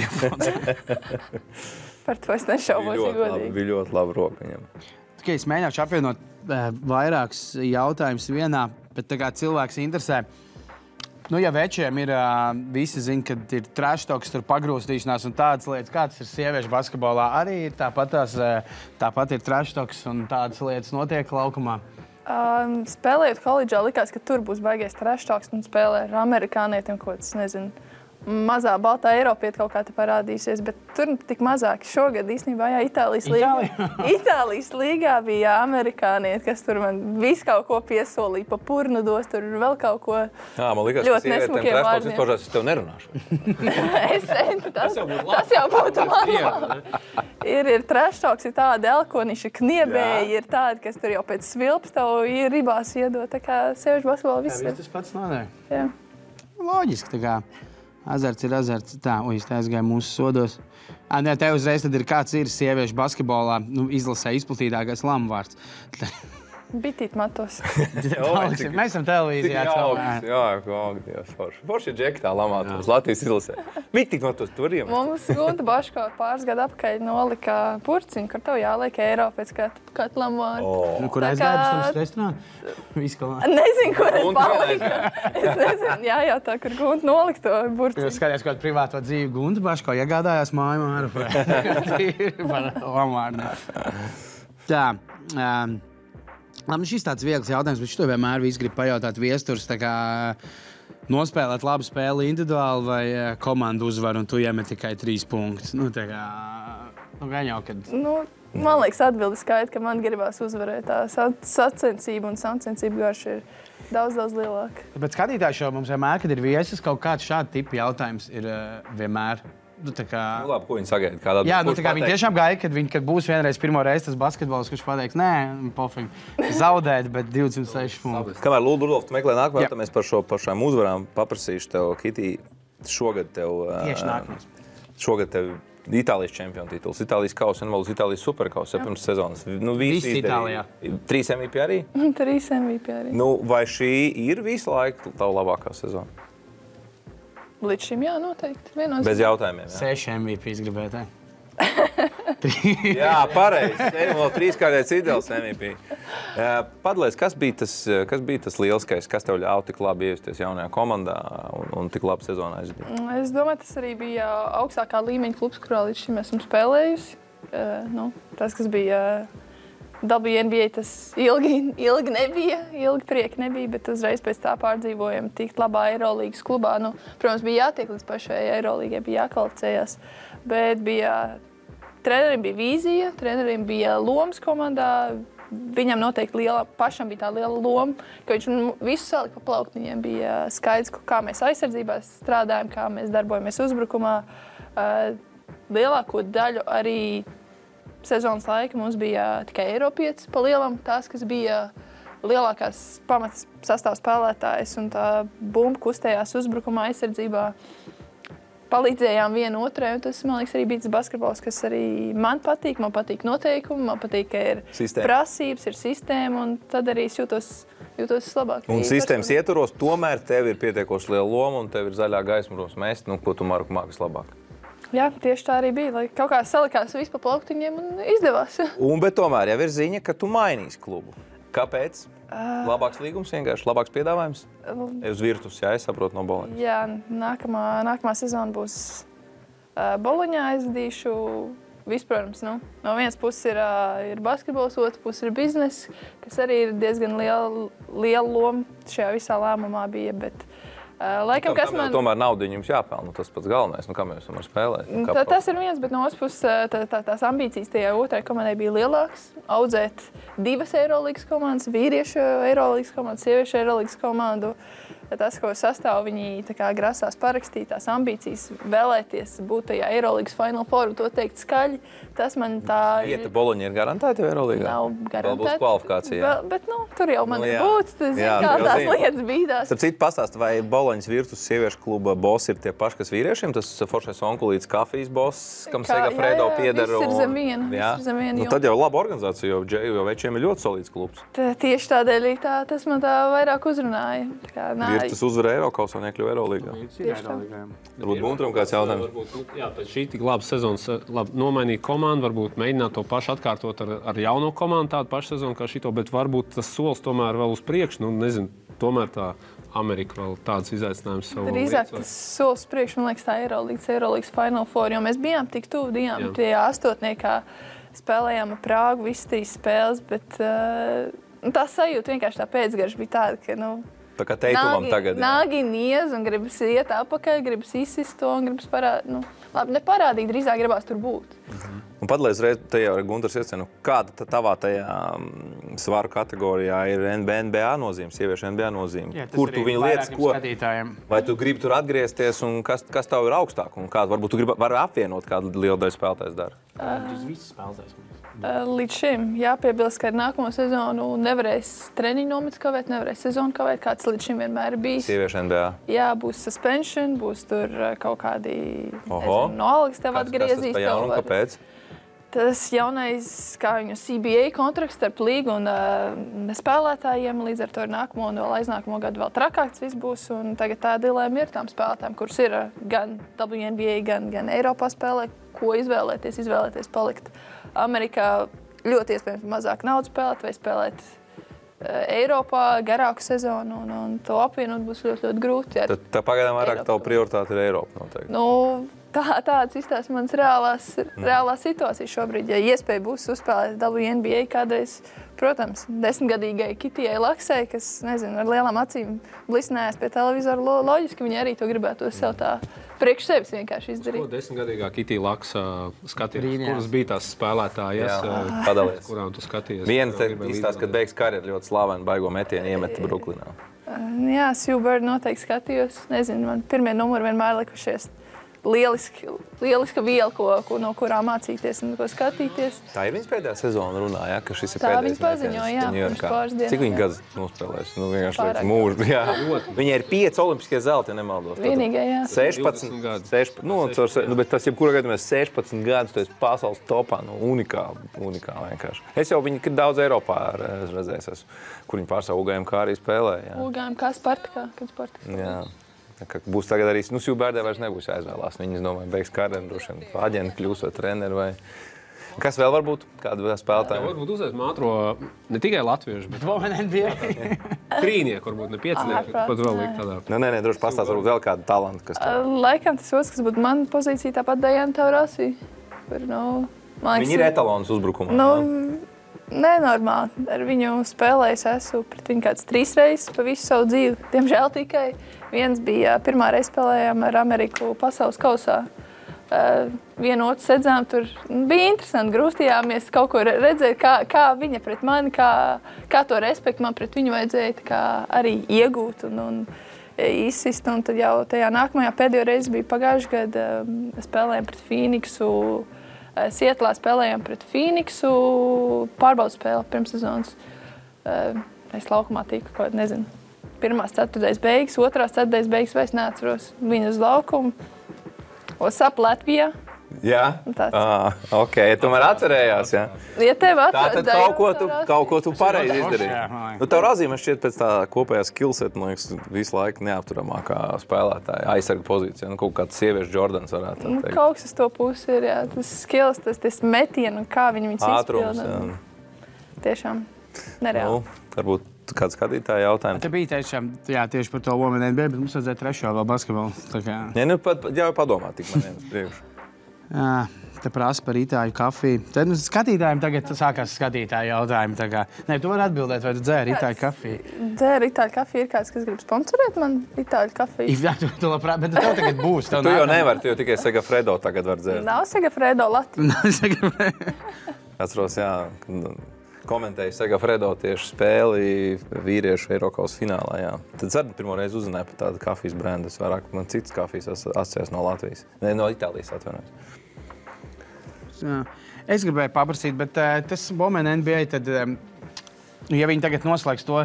Par to es nešaubos, ja godīgi. Bija ļoti laba roka viņam. Tikai es mēģināšu apvienot vairākus jautājumus vienā, bet tā kā cilvēks interesē. Nu, ja večiem ir, visi zina, ka ir trash-talks, tur pagrūstīšanās un tādas lietas, kā tas ir sieviešu basketbolā, arī ir tāpat ir trash-talks un tādas lietas notiek laukumā. Spēlējot koledžā, likās, ka tur būs baigais trash-talks un spēlē ar amerikānietiem, ko tas nezinu. Mazā baltā Eiropieta kaut kā te parādīsies, bet tur tik mazāk. Šogad īstenībā, jā, Itālijas līgā bija amerikānieti, kas tur man visu kaut ko piesolīja, pa purnu dos, tur vēl kaut ko Jā, man likās, ļoti ka nesmukiem vārdiem. izpaužās, es tev nerunāšu. Tas jau būtu man. Ir trash-talks, ir tādi elkoniši, kniebēji, ir tādi, kas tur jau pēc svilps tev ribās iedod. Tā kā sieviešu basketbolā viss ir. Tas pats notiek. Jā. Loģiski, tā kā. Azarts ir azarts. Tā, es te aizgāju mūsu sodos. Nē, te uzreiz tad ir kāds ir sieviešu basketbolā, izlasē izplatītākais lamvārds. Bitīt matos. Mēs esam televīzijā. Forši ir džekitā lamātos Latvijas izlasē. Bitīt matos, tu vari iemest. Mums Gunta Baško pāris gadu apakaļ nolika purciņu, kur tev jāliek eiro pēc kādu lamvārdu. Kur aizgāja pēc tam restorānu? Viskalā. Nezinu, kur es paliku. Es nezinu, jājautā, kur Gunta nolika to purciņu. Jūs skatījās kādu privāto dzīvi. Gunta Baško iegādājās māju māru par lamvārdu. Tā. Labi, šis tāds viegls jautājums, bet šito vienmēr visi grib pajautāt viesturs, tā kā nospēlēt labu spēli individuāli vai komandu uzvaru, un tu iemet tikai 3 punktus. Nu, tā kā, gan jau, kad... Man liekas, atbildi skaidri, ka man gribās uzvarēt. Tā sacensība un sacensība garš ir daudz lielāka. Bet skatītāji šo mums vienmēr, kad ir viesis, kaut kāds šāda tipa jautājums ir vienmēēr. Labi, ko viņi sagaida? Jā, viņi tiešām gaida, kad būs vienreiz pirmo reizi tas basketbols, kurš pateiks, nē, pofīgi, zaudēt, bet 206 punktus. Kamēr Lūdzu Rudolf, tu meklē nākamā, tad mēs par šām uzvarām paprasīšu tev, Kitī, šogad tev... Tieši nākamais. Šogad tev Itālijas čempionu tituls, Itālijas kausa un vēl uz Itālijas superkausa pirms sezonas. Visi Itālijā. 3 MVP arī? 3 MVP arī. Vai šī ir visu laiku tava labākā sezona? Līdz šim, jā, noteikti. Bez jautājumiem, jā. 6 MVPs gribētu. Jā, pareizi. Ejam vēl 3-kārtais ideāls MVP. Padalies, kas bija tas lielskais, kas tev ļauj tik labi ievesties jaunajā komandā un tik labi sezonā aizdīt? Es domāju, tas arī bija augstākā līmeņa klubs, kurā līdz šim esmu spēlējusi. Tas, kas bija WNBA, tas ilgi nebija, ilgi prieki nebija, bet uzreiz pēc tā pārdzīvojam tikt labā Eirolīgas klubā. Protams, bija jātiek līdz pašai Eirolīgai, bija jākvalificējās, bet trenerim bija vīzija, trenerim bija lomas komandā. Viņam noteikti pašam bija tā liela loma, ka viņš visu salika pa plauktiņiem. Bija skaidrs, kā mēs aizsardzībā strādājam, kā mēs darbojamies uzbrukumā. Lielāko daļu arī sezonas laika mums bija tikai Eiropietis pa lielam, tās, kas bija lielākās pamatas sastāv spēlētājs un tā bumba kustējās uzbrukumā aizsardzībā. Palīdzējām vienu otrai, un tas, man liekas, arī bija tas basketbols, kas arī man patīk noteikumi, man patīk, ka ir prasības, ir sistēma, un tad arī es jūtos labāk. Un sistēmas ietvaros tomēr tev ir pietiekoši liela loma, un tev ir zaļā gaisma ros mest, ko tu māki vislabāk. Jā, tieši tā arī bija, lai kaut kā salikās viss pa plauktiņiem un izdevās. Bet tomēr jau ir ziņa, ka tu mainīsi klubu. Kāpēc? Labāks līgums vienkārši, labāks piedāvājums? Uz Virtus, jā, es saprotu no Boloņas. Jā, nākamā sezona būs Boloņā aizvadīšu. Protams, no vienas puses ir basketbols, otras puses ir biznes, kas arī ir diezgan liela loma šajā visā lēmumā bija, bet laikam, kas man... Tomēr naudiņu jums jāpelna, tas pats galvenais, kā mēs varam spēlēt. Tas ir viens, bet no otras puses tās ambīcijas tajā otrai komandai bija lielākas. Audzēt 2 Eirolīgas komandas, vīriešu Eirolīgas komandu, sieviešu Eirolīgas komandu. tas, ko sastāv, viņi tā kā grasās parakstīt tās ambīcijas, vēlēties būt tajā Eirolandes Final Four, to teikt skaļi. Tas man tā... Vieta Boloņa ir garantēta Eirolandā? Nav garantēta. Vēl būs kvalifikācija. Bet, tur jau man ir būts, kā tās lietas bīdās. Starp citu, pastāst, vai Boloņas Virtus sieviešu kluba boss ir tie paši, kas vīriešiem? Tas foršais onkulīts kafijas boss, kam Segafredo pieder. Viss ir zem viena. Tad jau laba organizācija, jo večiem ir ļoti solīds klubs. Tieši tādēļ tas man tā vairāk uzrunāja. Virtus uzvarēja Eirokausā, nekļuva Eirolīgā. Varbūt Guntram kāds jautājums. Jā, pēc šī tik labas sezonas nomainīt komandu, varbūt mēģināt to pašu atkārtot ar jauno komandu, tādu pašu sezonu kā šito, bet varbūt tas solis tomēr vēl uz priekšu. Nezinu, tomēr tā Amerika vēl tāds izaicinājums savu lietu. Drīzāk tas solis priekš, man liekas, tā Eirolandes Final Four, jo mēs bijām tik tuvu, tie astotniekā spēlējām ar Prāgu, visas 3 spēles, bet tā sajūta vienkārši tā pēcgarša bija tāda, ka, tā kā teikumam tagad. Nāgi niez un gribas iet apakaļ, gribas izsist to un gribas parādīt. Labi, neparādīt, drīzāk gribās tur būt. Un padalīdz reiz tajā Guntars iecinu, kāda tavā tajā svaru kategorijā ir NBA nozīme, sieviešu NBA nozīme? Jā, kur tu viņu lietas, ko? Skatītājiem. Vai tu gribi tur atgriezties un kas tev ir augstāk? Un kādu, varbūt tu vari apvienot kādu lielu daļu spēlētājs dara? Visi spēlētājs. Līdz šim jāpiebilst, ka ar nākamo sezonu nevarēs treniņu nomets kavēt, nevarēs sezonu kavēt, kāds līdz šim vienmēr ir bijis. Sieviešu NBA. Jā, būs suspension, būs tur kaut kādi, no algas tev atgriezīs. Kas tas pa jaunu, kāpēc? Tas jaunais, kā viņu CBA kontrakts starp līgu un spēlētājiem, līdz ar to ir nākamo un vēl aiznākamo gadu vēl trakāks viss būs. Un tagad tā dilēma ir tām spēlētājiem, kuras ir gan WNBA, gan Eiropā spēlē, ko izvēlēties palikt Amerikā. Ļoti iespējams mazāk naudas spēlēt vai spēlēt Eiropā garāku sezonu un to apvienot būs ļoti grūti. Tā pagaidām vairāk tavu prioritāte ir Eiropa noteikti. Tāds izstāsta mans reālās situācijas šobrīd. Ja iespēja būs uzspēlēt WNBA kādreiz, protams, 10-gadīgai Kitijai Laksai, kas, nezinu, ar lielām acīm blisnējās pie televizora, loģiski viņi arī to gribētu sev tā priekš sevis vienkārši izdarīt. Ko 10-gadīgā Kitija Laksa skatījās? Kuras bija tās spēlētājas, kurām tu skatījies? Viena izstāsta, kad beigas karjeru ļoti slavenu baigo metienu iemeta Bruklinā. Jā, Sue Bird noteikti skatījos. Nezinu, man pirmie numuri vienmēr likušies. Lieliska viela, no kurām mācīties un ko skatīties. Tā ir viņas pēdējā sezona runāja, ka šis ir tā pēdējais. Tā viņa paziņoja, jā, pirms pāris dienas. Cik viņa gadus nospēlēs? Vienkārši liekas mūžu. Jā. Viņai ir 5 olimpiskie zelti, ja nemaldos. Vienīgai, jā. 16 bet tas jebkurā gadījumā 16 gadus, tu esi pasaules topā, unikāli vienkārši. Es jau viņu daudz Eiropā redzējis esmu, kur viņi pārstāv UGMK arī spēlēja. UGMK Spartakā, Jā. Būs tagad arī, Sue Birdai vairs nebūs jāizvēlās. Viņas, domāju, beigs karjeru, droši vien aģenti kļūs vai treneri vai... Kas vēl var būt? Kāda spēlētāja? Varbūt uzreiz ātro ne tikai latviešu, bet NBA. Trīnieku, varbūt ne piecinieku. Pat vēl likt tādā. Nē, droši pastāst, varbūt vēl kādu talantu, kas tā. Laikam tas otrs, kas būtu mana pozīcija, tāpat Diana Taurasi. Viņa ir etalons uzbrukumā. Nenormāli. Ar viņu spēlējis esmu pret viņu kāds 3 reizes pa visu savu dzīvi. Diemžēl tikai viens bija pirmā reize spēlējām ar Ameriku pasaules kausā. Vienu otru sedzām, tur bija interesanti, grūstījāmies kaut ko redzēt, kā viņa pret mani, kā to respektu man pret viņu vajadzēja arī iegūt un izsist. Un tad jau tajā nākamajā pēdējo reizi bija pagājuši gadu spēlējām pret Phoenixu. Sietlā spēlējām pret Phoenixu, pārbaudas spēle pirms sezonas. Es laukumā tiku, kaut nezinu, 1. ceturtdaļas beigas, 2. ceturtdaļas beigas vairs neatceros. Viņa uz laukumu. What's up, Latvijā? Jā? Ok, tomēr atcerējās, jā? Ja tev atcerās, tātad kaut ko tu pareizi izdarīji. Tev Razīme šķiet pēc tā kopējā skillset, man liekas, visu laiku neapturamākā spēlētāja, aizsarga pozīcija. Kaut kāds sieviešu Jordans varētu teikt. Kaut kas uz to pusi ir, jā. Tas skills, tas metienu, kā viņus ātrums, izpilda. Tiešām nereāli. Varbūt kāds skatītāja jautājums. Te bija tieši par to Women NBA, bet mums vajadzēja trešo vēl basketbolu. Jā, padomā tik man viens priekš. Jā, te prasa par itāļu kafiju. Tad skatītājiem tagad sākās skatītāju jautājumi. Nē, tu vari atbildēt, vai tu dzēri itāļu kafiju? Dzēri itāļu kafiju. Ir kāds, kas grib sponsorēt man itāļu kafiju? Jā, tu labprāt, bet tev tagad būs. Tu jau nevari, tu jau tikai Segafredo tagad var dzērt. Nav Segafredo Latvija. Nav Segafredo. Atceros, jā. komentēju Segafredo tieši spēli vīriešu Eirokausa finālā. Jā. Tad es arī pirmo reizi uzzināju par tādu kafijas brendu. Vairāk man citas kafijas asociēs no Latvijas. Ne, no Itālijas atvainojos. Es gribēju paprasīt, bet tas Women NBA, tad, ja viņi tagad noslēgs to,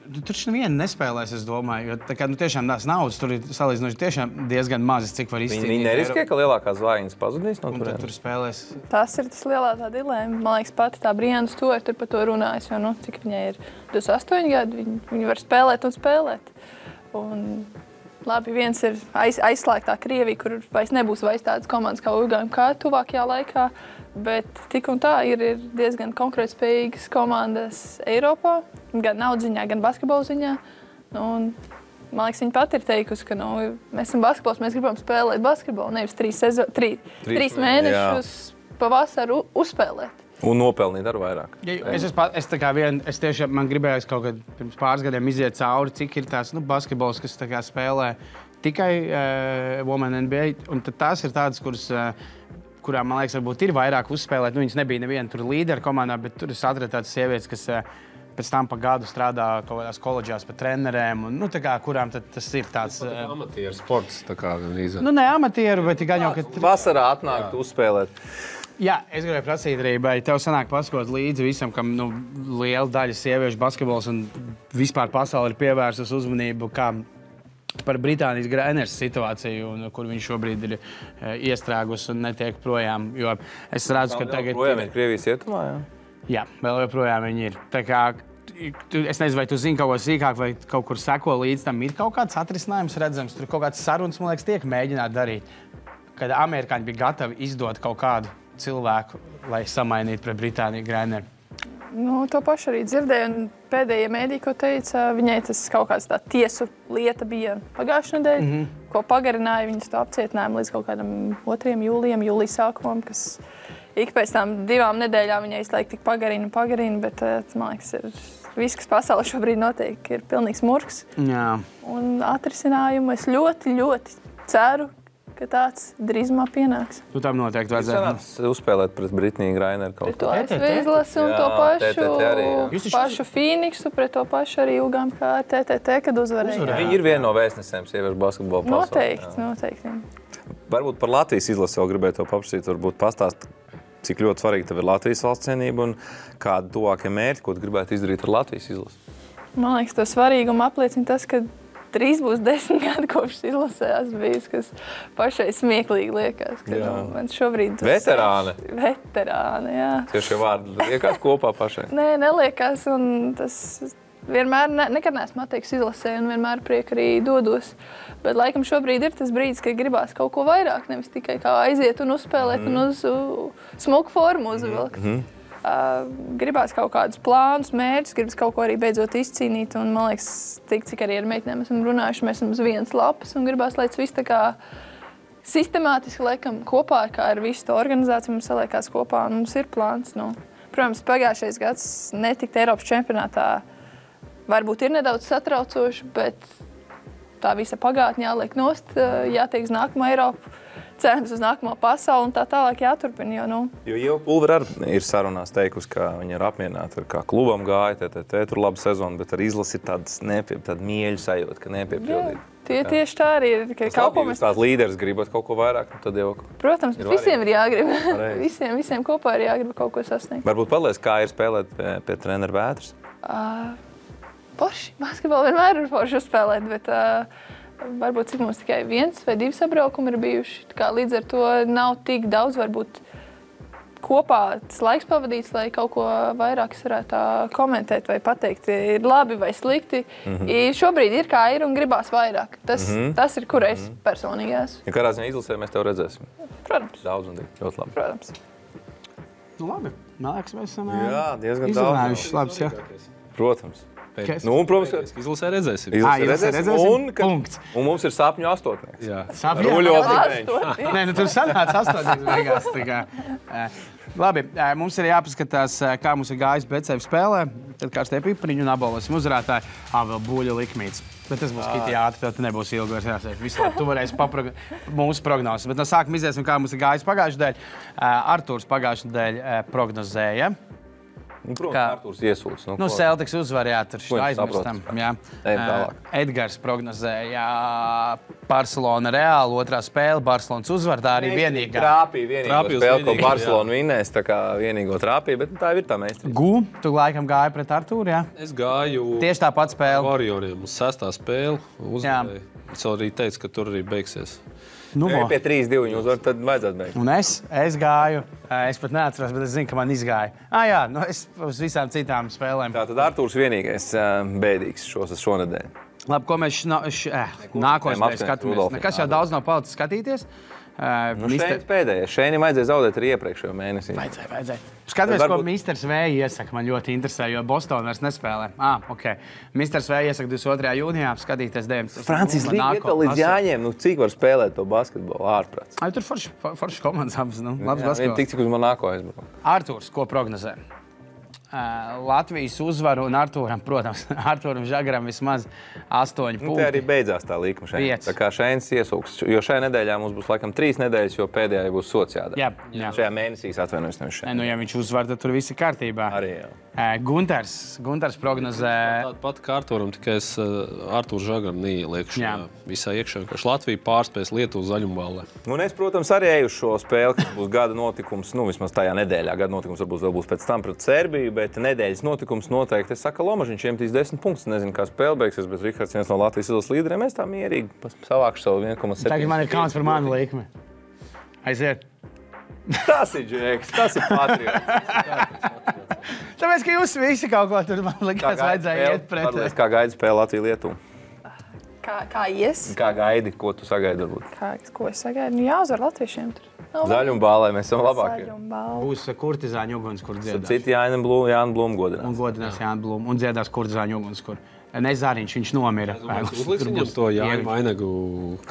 tur neviena nespēlēs, es domāju, jo tā kā, tiešām tās naudas tur ir salīdzinoši tiešām diezgan mazas, cik var izcīnīt. Viņi neriskē, ka lielākās zvaigznes pazudīs no turienes? Tur spēlēs. Tas ir tas lielā tā dilēma. Man liekas, pati tā Brianna Stewart tur par to runājas, jo, cik viņai ir 28 gadi, viņi var spēlēt un spēlēt. Un, labi, viens ir aizslēgtā Krievija, kur vairs nebūs tādas komandas kā UGMK tuvākajā laikā, bet tik un tā ir diezgan konkrēti spējīgas komandas Eiropā, gan naudas ziņā, gan basketbola ziņā. Un, man liekas, viņa pati ir teikusi, ka mēs esam basketbols, mēs gribam spēlēt basketbolu, nevis 3 mēnešus pavasaru uzspēlēt. Un nopelnīt ar vairāk. Es tiešām man gribējos kaut kad pirms pāris gadiem iziet cauri, cik ir tās basketbols, kas spēlē tikai Women NBA. Un tās ir tādas, kurām, man liekas, varbūt ir vairāk uzspēlēt. Viņas nebija neviena tur līdera komandā, bet tur es atradu tādas sievietes, kas pēc tam pa gadu strādā kaut kādās koledžās par trenerēm. Un, kurām tas ir tāds... Amatieru sports, tā kā gan ne amatieru, bet gan jau, ka... Vasarā atnākt uzspēlēt. Jā, es gribēju prasīt arī, vai tev sanāk paskot līdzi visam, kam liela daļa sieviešu basketbols un vispār pasauli ir pievērsus uzmanību kā par Britānijas Grainers situāciju, kur viņš šobrīd ir iestrēgus un netiek projām. Jo es redzu, ka tagad... Projām ir Krievijas ietumā, jā? Jā, vēl joprojām viņi ir. Tā kā, es nezinu, vai tu zini kaut ko sīkāk, vai kaut kur seko līdz tam. Ir kaut kāds atrisinājums redzams, tur kaut kāds sarunas, man liekas, tiek mēģināt darīt. Kad amerikāņi bija gatavi izdot kaut kādu cilvēku, lai samainītu pret Britāniju Graineru. To pašu arī dzirdēju, un pēdējie mēdī, ko teica, viņai tas kaut kāds tā tiesu lieta bija pagājušā nedēļa, ko pagarināja viņas to apcietinājumu līdz kaut kādam 2. jūlijam, jūlijas sākumam, kas ik pēc tām 2 nedēļām viņai izlaik tik pagarina, bet, man liekas, viss, kas pasaulē šobrīd notiek, ir pilnīgs murgs. Jā. Un atrisinājumu es ļoti, ļoti ceru, ka tāds drīzumā pienāks. Tu tam noteikti vajadzētu. Jūs uzspēlēt pret Britniju Graineru kaut ko? Pret to izlasi un to pašu Phoenixu, pret to pašu arī UGMK TTT, kad uzvarēja. Viņi ir viena no vēstnesēm sieviešu basketbola pasaulē. Noteikti. Varbūt par Latvijas izlasi vēl gribēju tev paprasīt, varbūt pastāst, cik ļoti svarīgi tev ir Latvijas valsts cienība un kādi tuvākie mērķi, ko tu gribētu izdarīt ar Latvijas izlasi? Man liekas, to svarīgumu apliecina tas, ka drīz būs 10 gadi kopš izlasējās bijis, kas pašai smieklīgi liekas. Man šobrīd Veterāne. Veterāne, jā. Tieši vārdi liekas kopā pašai? Nē, neliekas, un tas vienmēr, nekad neesmu atteikusi izlasē, un vienmēr prieku arī dodos. Bet laikam šobrīd ir tas brīdis, kad gribās kaut ko vairāk, nevis tikai kā aiziet un uzspēlēt un uz smuku formu uzvilkt. Gribās kaut kādus plānus, mērķus, gribas kaut ko arī beidzot izcīnīt. Un, man liekas, cik arī ar meitenēm esam runājuši, mēs esam uz vienas lapas un gribās, lai tas viss tā kā sistemātiski liekam kopā, kā ar visu to organizāciju mums saliekās kopā un mums ir plāns. Protams, pagājušais gads netikt Eiropas čempionātā varbūt ir nedaudz satraucoši, bet tā visa pagātne jāliek nost, jātiek uz nākamo Eiropu. Cerams uz nākamo pasauli un tā tālāk jāturpina. Jo Ieva Pulvere arī ir sarunās teikusi, ka viņa ir apmierināta, kā klubam gāja, tur laba sezona, bet ar izlasi ir tāda mieļu sajūta, ka nepiepildīt. Tieši tā arī ir. Jūs tās līderis gribat kaut ko vairāk, tad jau... Protams, visiem ir jāgrib. visiem kopā ir jāgrib kaut ko sasniegt. Varbūt paliec, kā ir spēlēt pie treneru Vētras? Forši. Basketbolu vienmēr ir forši uzspēlēt, bet... Varbūt cik mums tikai 1 vai 2 sabraukumi ir bijuši. Līdz ar to nav tik daudz varbūt kopā tas laiks pavadīts, lai kaut ko vairāk varētu komentēt vai pateikt, ir labi vai slikti. Šobrīd ir kā ir un gribās vairāk. Tas ir, kur es personīgi esmu. Ja kādā ziņā izlasē mēs tev redzēsim? Protams. Daudz un ļoti labi. Protams. Labi. Man liekas, mēs esam diezgan izrunājuši labs, jā. Protams. Protams, izlasē redzēsim. Punkts. Un mums ir sapņu astotnieks. Sapņu astotnieks. Nē, tur sanāca astotnieks beigās. Labi, mums ir jāpaskatās, kā mums ir gājis BCF spēlē. Tad kārstie pipariņu un apbalvosim uzvarētāju. Vēl buļļu likmīts. Bet tas būs kitī ātri, tad nebūs ilgi vairs jāsēž. Visu labi, tu varēsi mūsu prognozes. Bet no sākuma iziesim, kā mums ir gājis pagājušajā dēļ. Artūrs pagājušajā dēļ prognozēja. Protams, Artūrs iesūdz. Celtics uzvar, jā, tur šitā aizmirstam. Edgars prognozēja Barcelona Reāli, otrā spēle, Barcelonas uzvar, tā arī vienīgā. Trāpīja vienīgo spēle, ko Barcelona vinnēs, tā kā vienīgo trāpīja, bet tā ir tā meistri. Tu laikam gāji pret Artūru, jā? Es gāju tieši tā pati spēle. Warrioriem uz 6. spēli uzvarēju. Es arī teicu, ka tur arī beigsies. Pie 3-2 viņi uzvar, tad vajadzētu beigt. Un es gāju, es pat neatceros, bet es zinu, ka man izgāja. Es uz visām citām spēlēm. Tātad Artūrs vienīgais bēdīgs šonedēļ. Labi, ko mēs nākošais skatāmies. Nekas jau daudz nav palicis skatīties. Šeit pēdējais. Šeit vajadzēja zaudēt arī iepriekšējo mēnesī. Vajadzēja. Skatāmies, ko Misters V iesaka. Man ļoti interesē, jo Bostonā vairs nespēlē. Misters V iesaka 22. jūnijā skatīties 9. Francijas līga iet līdz Jāņiem. Cik var spēlēt to basketbolu ārprāts? Tur forši komandas abas. Labs basketbols. Tik, cik uz Monako aizbrauc. Artūrs, ko prognozē? Latvijas uzvaru un Artūram, protams, Artūram Žagaram vismaz 8 punkti. Te arī beidzās tā līkuma šeit. Tā kā šeit iesūks, jo šajā nedēļā mums būs laikam 3 nedēļas, jo pēdējā būs sots jādara. Jā. Šajā mēnesī atvainojos nevis šeit. Ja viņš uzvar, tad tur viss ir kārtībā. Arī jā. Gunters prognozē. Tāda pati kā Artūram, tikai es Artūru Žagaram neieliekšu visā iekšā. Latvija pārspēs Lietuvu zaļumballē. Un es, protams, arī eju uz šo spēli, kas būs gada notikums, vismaz tajā nedēļā. Gada notikums varbūt vēl būs pēc tam pret Serbiju, bet nedēļas notikums noteikti. Es saku, Lomažiņš iemetīs 10 punktus. Nezinu, kā spēle beigsies, bet Rihards viens no Latvijas izlases līderiem. Es tā mierīgi savākšu savu 1,7. Tagad man ir kauns par manu likmi. Aiziet. Tas ir Džeks, tas ir patriots. Tāpēc, ka jūs visi kaut ko tur, man likās, vajadzēja iet pret. Kā gaidi spēle Latviju-Lietuvu? Kā ies? Kā gaidi? Ko tu sagaidi varbūt? Ko es sagaidu? Jāuzvar latviešiem tur. Zaļumbālē mēs esam labākie. Būs kurtizāņu ugunskur dziedās. Citi Jāna Blūma godinās. Un godinās Jāna Blūma. Un dziedās kurtizāņu ugunskur. Nezāriņš, viņš nomira. Uzliks viņam to Jāņu vainagu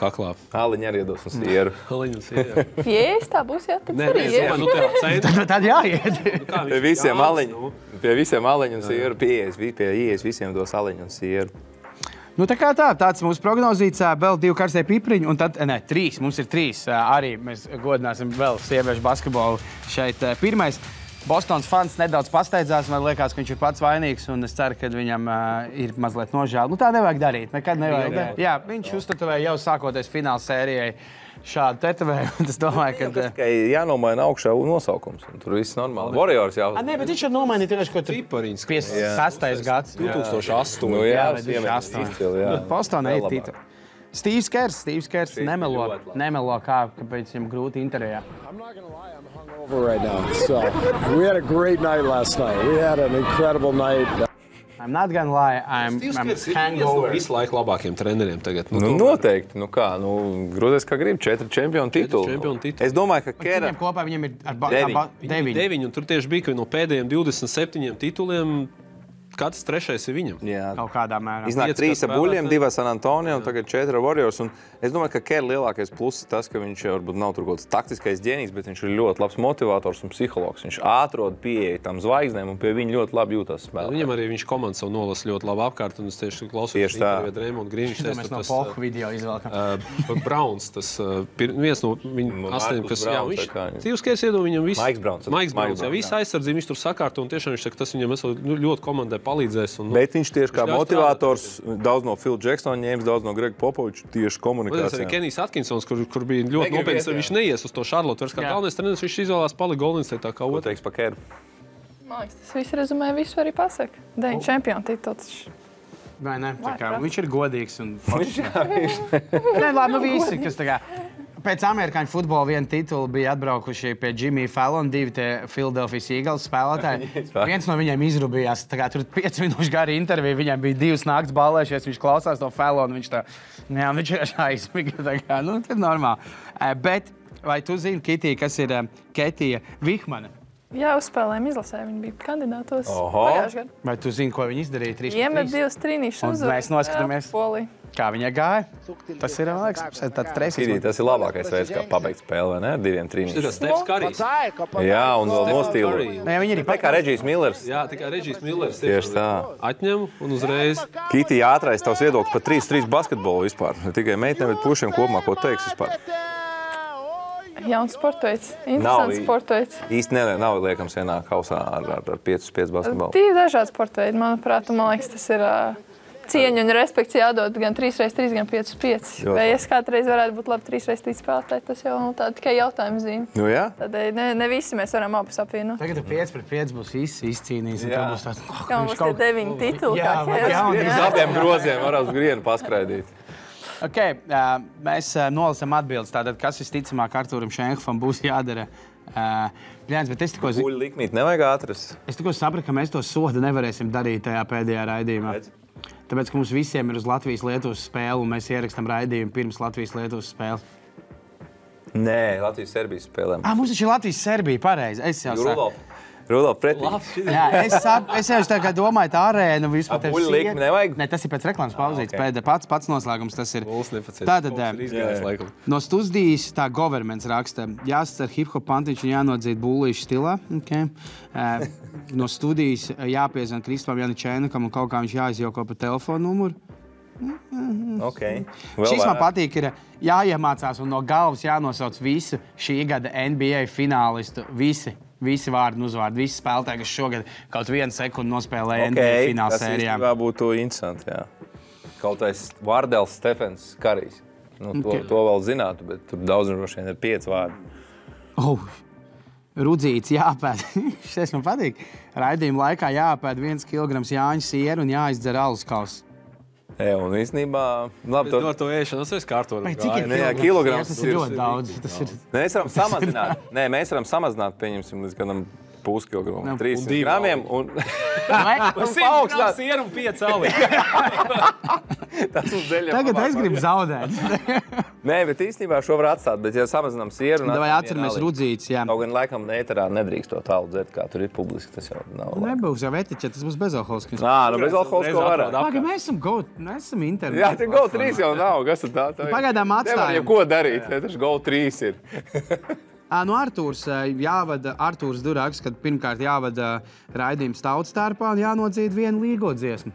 kaklā. Aliņu arī iedos un sieru. Aliņu un sieru. Jēs, tā būs, jā, tad arī iet. Tad jāiet. Pie visiem aliņu un sieru pieejas, visiem dos aliņu un sieru. Tāds mūsu prognozīts, vēl 2 karstie pipriņi, un tad, 3, mums ir 3. Arī mēs godināsim vēl sieviešu basketbolu šeit. Pirmais, Bostonas fans nedaudz pasteidzās, man liekas, ka viņš ir pats vainīgs, un es ceru, ka viņam ir mazliet nožēl. Tā nevajag darīt, nekad nevajag darīt. Jā, viņš uztetovēja jau sākoties fināla sērijai šādu tetovējumu. Es domāju, ka... Tikai jānomaina augšā nosaukums, un tur viss normāli. Warriors jau... Nē, bet viņš jau nomainīja tieši, ko tur 56. gads. 2008. Jā, 2008. Bostonā ir titul. Steve's Kers nemelo kāpēc viņam grūti intervijā. Right now. So we had a great night last night. We had an incredible night. I'm not gonna lie, I'm hangover. Visu laiku labākiem treneriem tagad. Noteikti. Grūties, kā grib. 4 čempionu tituli. Es domāju, ka Kera... Viņiem kopā viņam ir 9. Un tur tieši bija, ka no pēdējiem 27 tituliem katrs 3. ir viņam. Jā. Kaut kādā mērā. Iznāk 3 ar Buļļiem, 2 ar San Antonio un tagad 4 ar Warriors. Un es domāju, ka Kera lielākais pluss ir tas, ka viņš varbūt nav tur kaut kāds taktiskais ģēnijs, bet viņš ir ļoti labs motivators un psihologs. Viņš atrod pieeja tam zvaigznēm un pie viņa ļoti labi jūtas spēlē. Viņam arī viņš komandu savu nolasa ļoti labi apkārt, un es tieši klausījos interviju Drēmondu Grīniņš. Mēs no Polku video izvēlkam. Browns, tas viens no viņu 8, kas viņš Steve's Kers iedod viņam visu. Maiks Browns, jā, visu aizsardzību viņš tur sakārto, un tiešām viņš saka, tas viņam ļoti komandai palīdzēs. Bet viņš tieši kā motivators, daudz no Phil Jacksona ņēmis, daudz no Grega Popoviča tieši komunikācijā. Arī Kenijs Atkinsons, kur bija ļoti nopietns, viņš neies uz to Charlotte. Vairs kā galvenais treneris, viņš izvēlās palika Golden State tā kā otru. Ko teiks par Keru? Man liekas, tas viss rezumē visu arī pasaka. 9 čempionu tituls. Vai ne? Viņš ir godīgs un foršs. Nē, labi, visi, kas tā kā... Pēc amerikāņu futbola viena titula bija atbraukuši pie Jimmy Fallon, 2 tie Philadelphia Eagles spēlētāji. Viens no viņiem izrubījās, tur 5 minūšu gari intervija, viņam bija 2 nakts ballēšies, viņš klausās to Fallon, viņš ir aizmiga, tas ir normāli. Bet vai tu zini, Kitī, kas ir Ketija Vihmana? Jā, uzspēlējām izlasē, viņi bija kandidātos pagājušajā gadā. Vai tu zini, ko viņi izdarīja 3-3? Iemet 2 trīnīšus uzvaru. Mēs noskatāmies, kā viņai gāja. Tas ir, man liekas, tāds treisīs. Tas ir labākais veids, kā pabeigt spēli, vai ne? 2 trīnīšus. Tas ir Stefs Karijs. Jā, un vēl nostīlu. Viņi ir tā kā Regijs Millers. Jā, tā kā Regijs Millers. Tieši tā. Atņem un uzreiz. Kitī, ātrais tavs viedoklis par 3-3 basketbolu vispār. Ne tikai meitnēm, bet pušiem kopumā, ko teiks vispār? jauns sportveids. Interesants sportveids. Īsti nav liekams vienā kausā ar 5-5 basketbolu. Divi dažādi sportveidi, manuprāt, un man liekas, tas ir cieņa un respekts jādod gan 3x3, gan 5x5. Vai es kādreiz varētu būt labi 3x3 spēlētāji, tas jau tā tikai jautājuma zīme. Nu jā. Tādēļ ne visi mēs varam abus apvienot. Tagad 5-5 būs izcīnījis. Kā mums tie 9 tituli, Uz abiem groziem var uz grienu paskraidīt. Okay, mēs nolasām atbildes. Tātad, kas visticamāk Artūram Šenhofam būs jādara? Bet es tikko Buļu likmīt nevajag atrast. Es tikko sapratu, ka mēs to sodu nevarēsim darīt tajā pēdējā raidījumā. Tāpēc, ka mums visiem ir uz Latvijas-Lietuvas spēle, un mēs ierakstam raidījumu pirms Latvijas-Lietuvas spēles. Nē, Latvijas-Serbijas spēlēm. Mums taču ir Latvijas-Serbija, pareizi. Es jau Rudolf pretī. Jā, es jau tā kā domāju, tā arēna vispār tev buļu likmi nevajag? Ne, tas ir pēc reklāmas pauzītes. Pats noslēgums tas ir. Tātad, no studijas tā governments raksta, jāscer hip-hop pantiņš un jānodzīd bullīšu stilā. Okay. No studijas jāpiezvan Kristupam Janičēnakam un kaut kā viņš jāizjoko pa telefonu numuru. Okay. Šis man patīk, ir jāiemācās un no galvas jānosauc visu šī gada NBA finālistu. Visi vārdi un uzvārdi, visi spēlētāji, kas šogad kaut vienu sekundi nospēlēja NBA fināla sērijā. Tas būtu interesanti, jā. Kaut tais Vārdels Stefens Karijs. To vēl zinātu, bet tur daudz droši vien ir 5 vārdi. Rudzīts jāpēd. Šis man patīk. Raidījuma laikā jāpēd 1 kilograms Jāņu sieru un jāizdzer alus kausu. Un īstenībā... Labi, to ar to ēšanas es kārtoju. Cik ir kilograms? Tas ir ļoti daudz. Mēs varam samazināt. Mēs varam samazināt, pieņemsim, līdz kādam puskilogramam. 300 gramiem un... Un 100 gramu sieru un 5 alī. Tas mums deļiem Tagad es gribu zaudēt. Nē, bet īstenībā šo var atstāt, bet ja samazinām sieru... Vai atceramies Rudzīts, jā. Kaut gan laikam ēterā nedrīkst to tālu dzert, kā tur ir publiski, tas jau nav labi. Nebūs jau etiķe, tas būs bezalkoholiski. Bezalkoholisko varētu. Pagaid, mēs esam internetu. Jā, te Go 3 jau nav, kas ir tā? Pagaidām atstājam. Nevar jau ko darīt, taču Go 3 ir. Artūrs Durāks, kad pirmkārt jāvada raidījums tautas tērpā un jānodzīd vienu līgo dziesmu.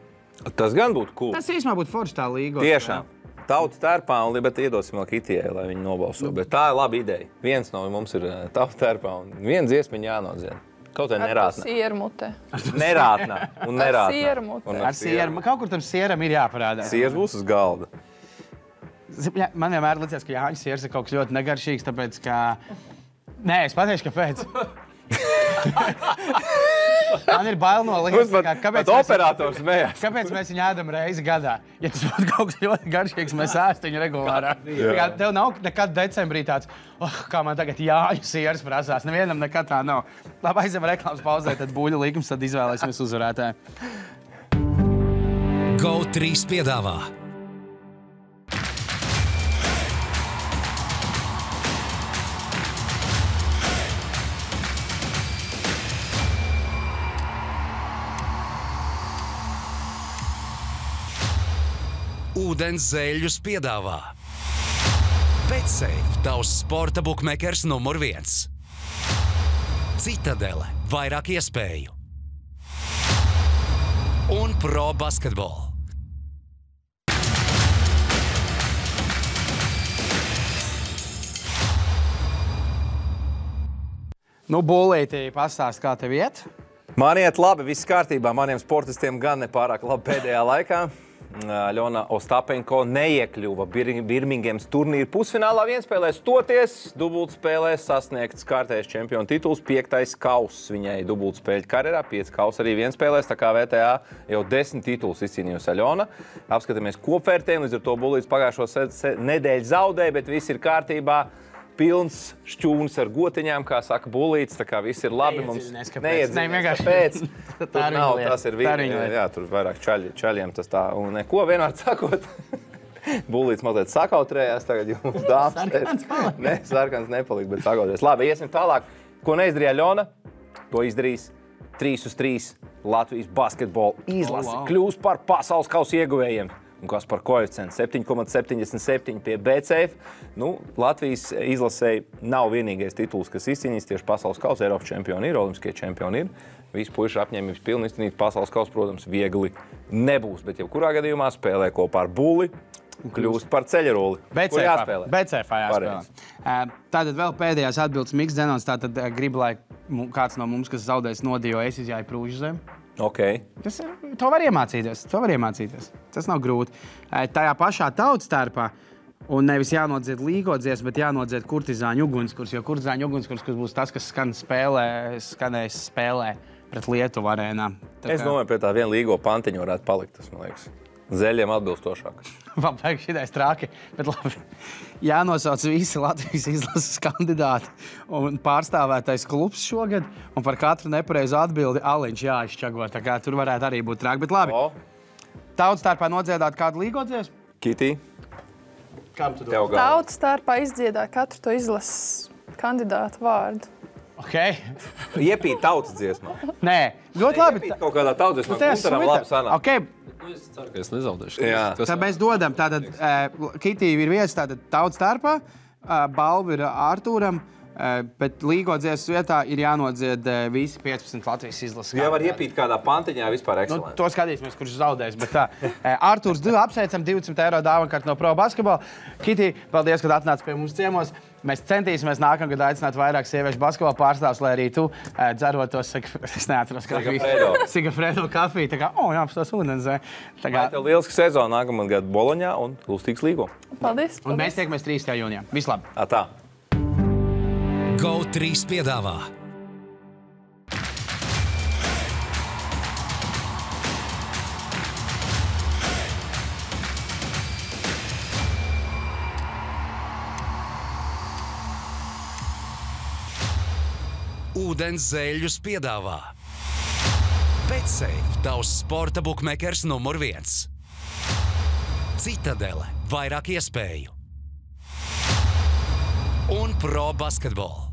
Tas gan būtu cool. Tas īstenībā būtu forši tā līgo. Tiešām. Tautas tērpā un bet iedosim vēl Kitijai, lai viņi nobalso. Bet tā ir laba ideja. Viens no mums ir tautas tērpā un viena dziesmiņa jānodzied. Kaut vai nerātnā. Ar sieru mutē. Nerātnā un nerātnā. Ar sieru mutē. Ar sieru. Kaut kur tam sieram ir jāparādās. Siers būs uz galda. Man vienmēr liekas, ka Jāņa siers ir kaut kas ļoti negaršīgs, tāpēc, ka... Nē, es pateikšu, kāpēc. Man ir bail no lietas, operators smējās. Kāpēc mēs viņu ēdam reizi gadā? Ja tas būtu kaut kas ļoti garšīgs, mēs ēstu viņu regulārā. Tev nav nekad decembrī tāds, kā man tagad Jāņu siers prasās. Nevienam nekad tā nav. Labi, aizem reklāmas pauzē, tad buļu likums, tad izvēlēsimies uzvarētāju. Go 3 piedāvā. Ūdens zēļus piedāvā. BetSafe, tavs sporta bukmekers numur 1. Citadele, vairāk iespēju. Un Pro Basketball. Bolītī, pastāst, kā tev iet? Man iet labi, viss kārtībā. Maniem sportistiem gan nepārāk labi pēdējā laikā. Ļona Ostapenko neiekļuva Birmingemas turnīra pusfinālā vienspēlē stoties. Dubultspēlē sasniegts kārtējais čempionu tituls, 5. kauss viņai dubultspēļu karjerā, 5 kauss arī vienspēlēs, tā kā VTA jau 10 tituls izcīnījusi Ļona. Apskatāmies kopvērtējumu, līdz ar to Bulīts pagājušo nedēļu zaudēja, bet viss ir kārtībā. Pilns šķūnis ar gotiņām, kā saka Bulīts, tā kā viss ir labi. Mums neiedziļinās, kāpēc. Tur nav, tas ir jā, tur vairāk čaļiem tas tā, un neko vienmēr sakot. Bulīts mazliet sakautrējās, tagad jums dāmas. Ne, sarkans nepalika, bet sakautrējās. Labi, iesim tālāk. Ko neizdarīja Ļona, to izdarīs 3-3 Latvijas basketbola izlase. Kļūs par pasaules kausa ieguvējiem. Un kas par koeficientu 7,77 pie BCF. Latvijas izlasēji nav vienīgais tituls, kas izcīnīs tieši pasaules kausa. Eiropas čempioni ir, olimpiskie čempioni ir. Visi puiši apņēmības pilni izcīnīt pasaules kausa, protams, viegli nebūs. Bet jebkurā gadījumā spēlē kopā ar Buli. kļūst par ceļroli. Kur jāspēlē? BCF jāspēlē. Tātad vēl pēdējās atbildes Miks Zenons. Tātad gribu, lai kāds no mums, kas zaudēs nodīju, es izjāju Prūžu zem. Okay. To var iemācīties. Tas nav grūti. Tajā pašā tautstērpā un nevis jānodzied līgo dziesmu, bet jānodzied kurtizāņu ugunskurs, jo kurtizāņu ugunskurs būs tas, kas skanēs spēlē pret Lietuvu arēnā. Es domāju, pie tā viena līgo pantiņa varētu palikt, tas, man liekas. Zeļiem atbilstošāk. Man vajag šitais trāki, bet labi. Jānosauc visi Latvijas izlases kandidāti un pārstāvētais klubs šogad, un par katru nepareizu atbildi aliņš jāizšķago, tā kā tur varētu arī būt trāk, bet labi. Tautstārpā nodziedāt kādu līgo dziesmu? Kitī. Kam tu dod? Tautstārpā izdziedāt katru to izlases kandidātu vārdu. Okay. Iepīt tautas dziesmā. Nē, ļoti labi. Iepīt kaut kādā tautas dziesmā, Guntaram labi sanāk. Okay. Es ceru, ka es nezaudēšu. Tad mēs dodam, tātad Kitī ir vietas tātad tautstārpā, balva ir Ārtūram, bet līgo dziesmas vietā ir jānodzied visi 15 Latvijas izlases. Jā, var iepīt kādā pantiņā vispār ekscelenti. To skatīsimies, kurš zaudēs, bet tā. Ārtūrs apsveicam 200 eiro dāvankart no Pro Basketbola. Kitī, paldies, kad atnāc pie mums ciemos. Mēs centīsimies nākamgad aicināt vairāk sieviešu basketbola pārstāvs, lai arī tu dzerotos, es neatceros kafiju. Sigafredo kafiju, tā kā, jāapstos ūdens. Lai tev lieliski sezona nākamad gadu Boloņā un Lustīgs līgo. Paldies. Un mēs tiekamies 3. jūnijā. Vislabāk. Tā. GO3 piedāvā Ūdens zeļus piedāvā BetSafe, tavs sporta bukmekers numur 1. Citadele, vairāk iespēju. Un Pro Basketbola.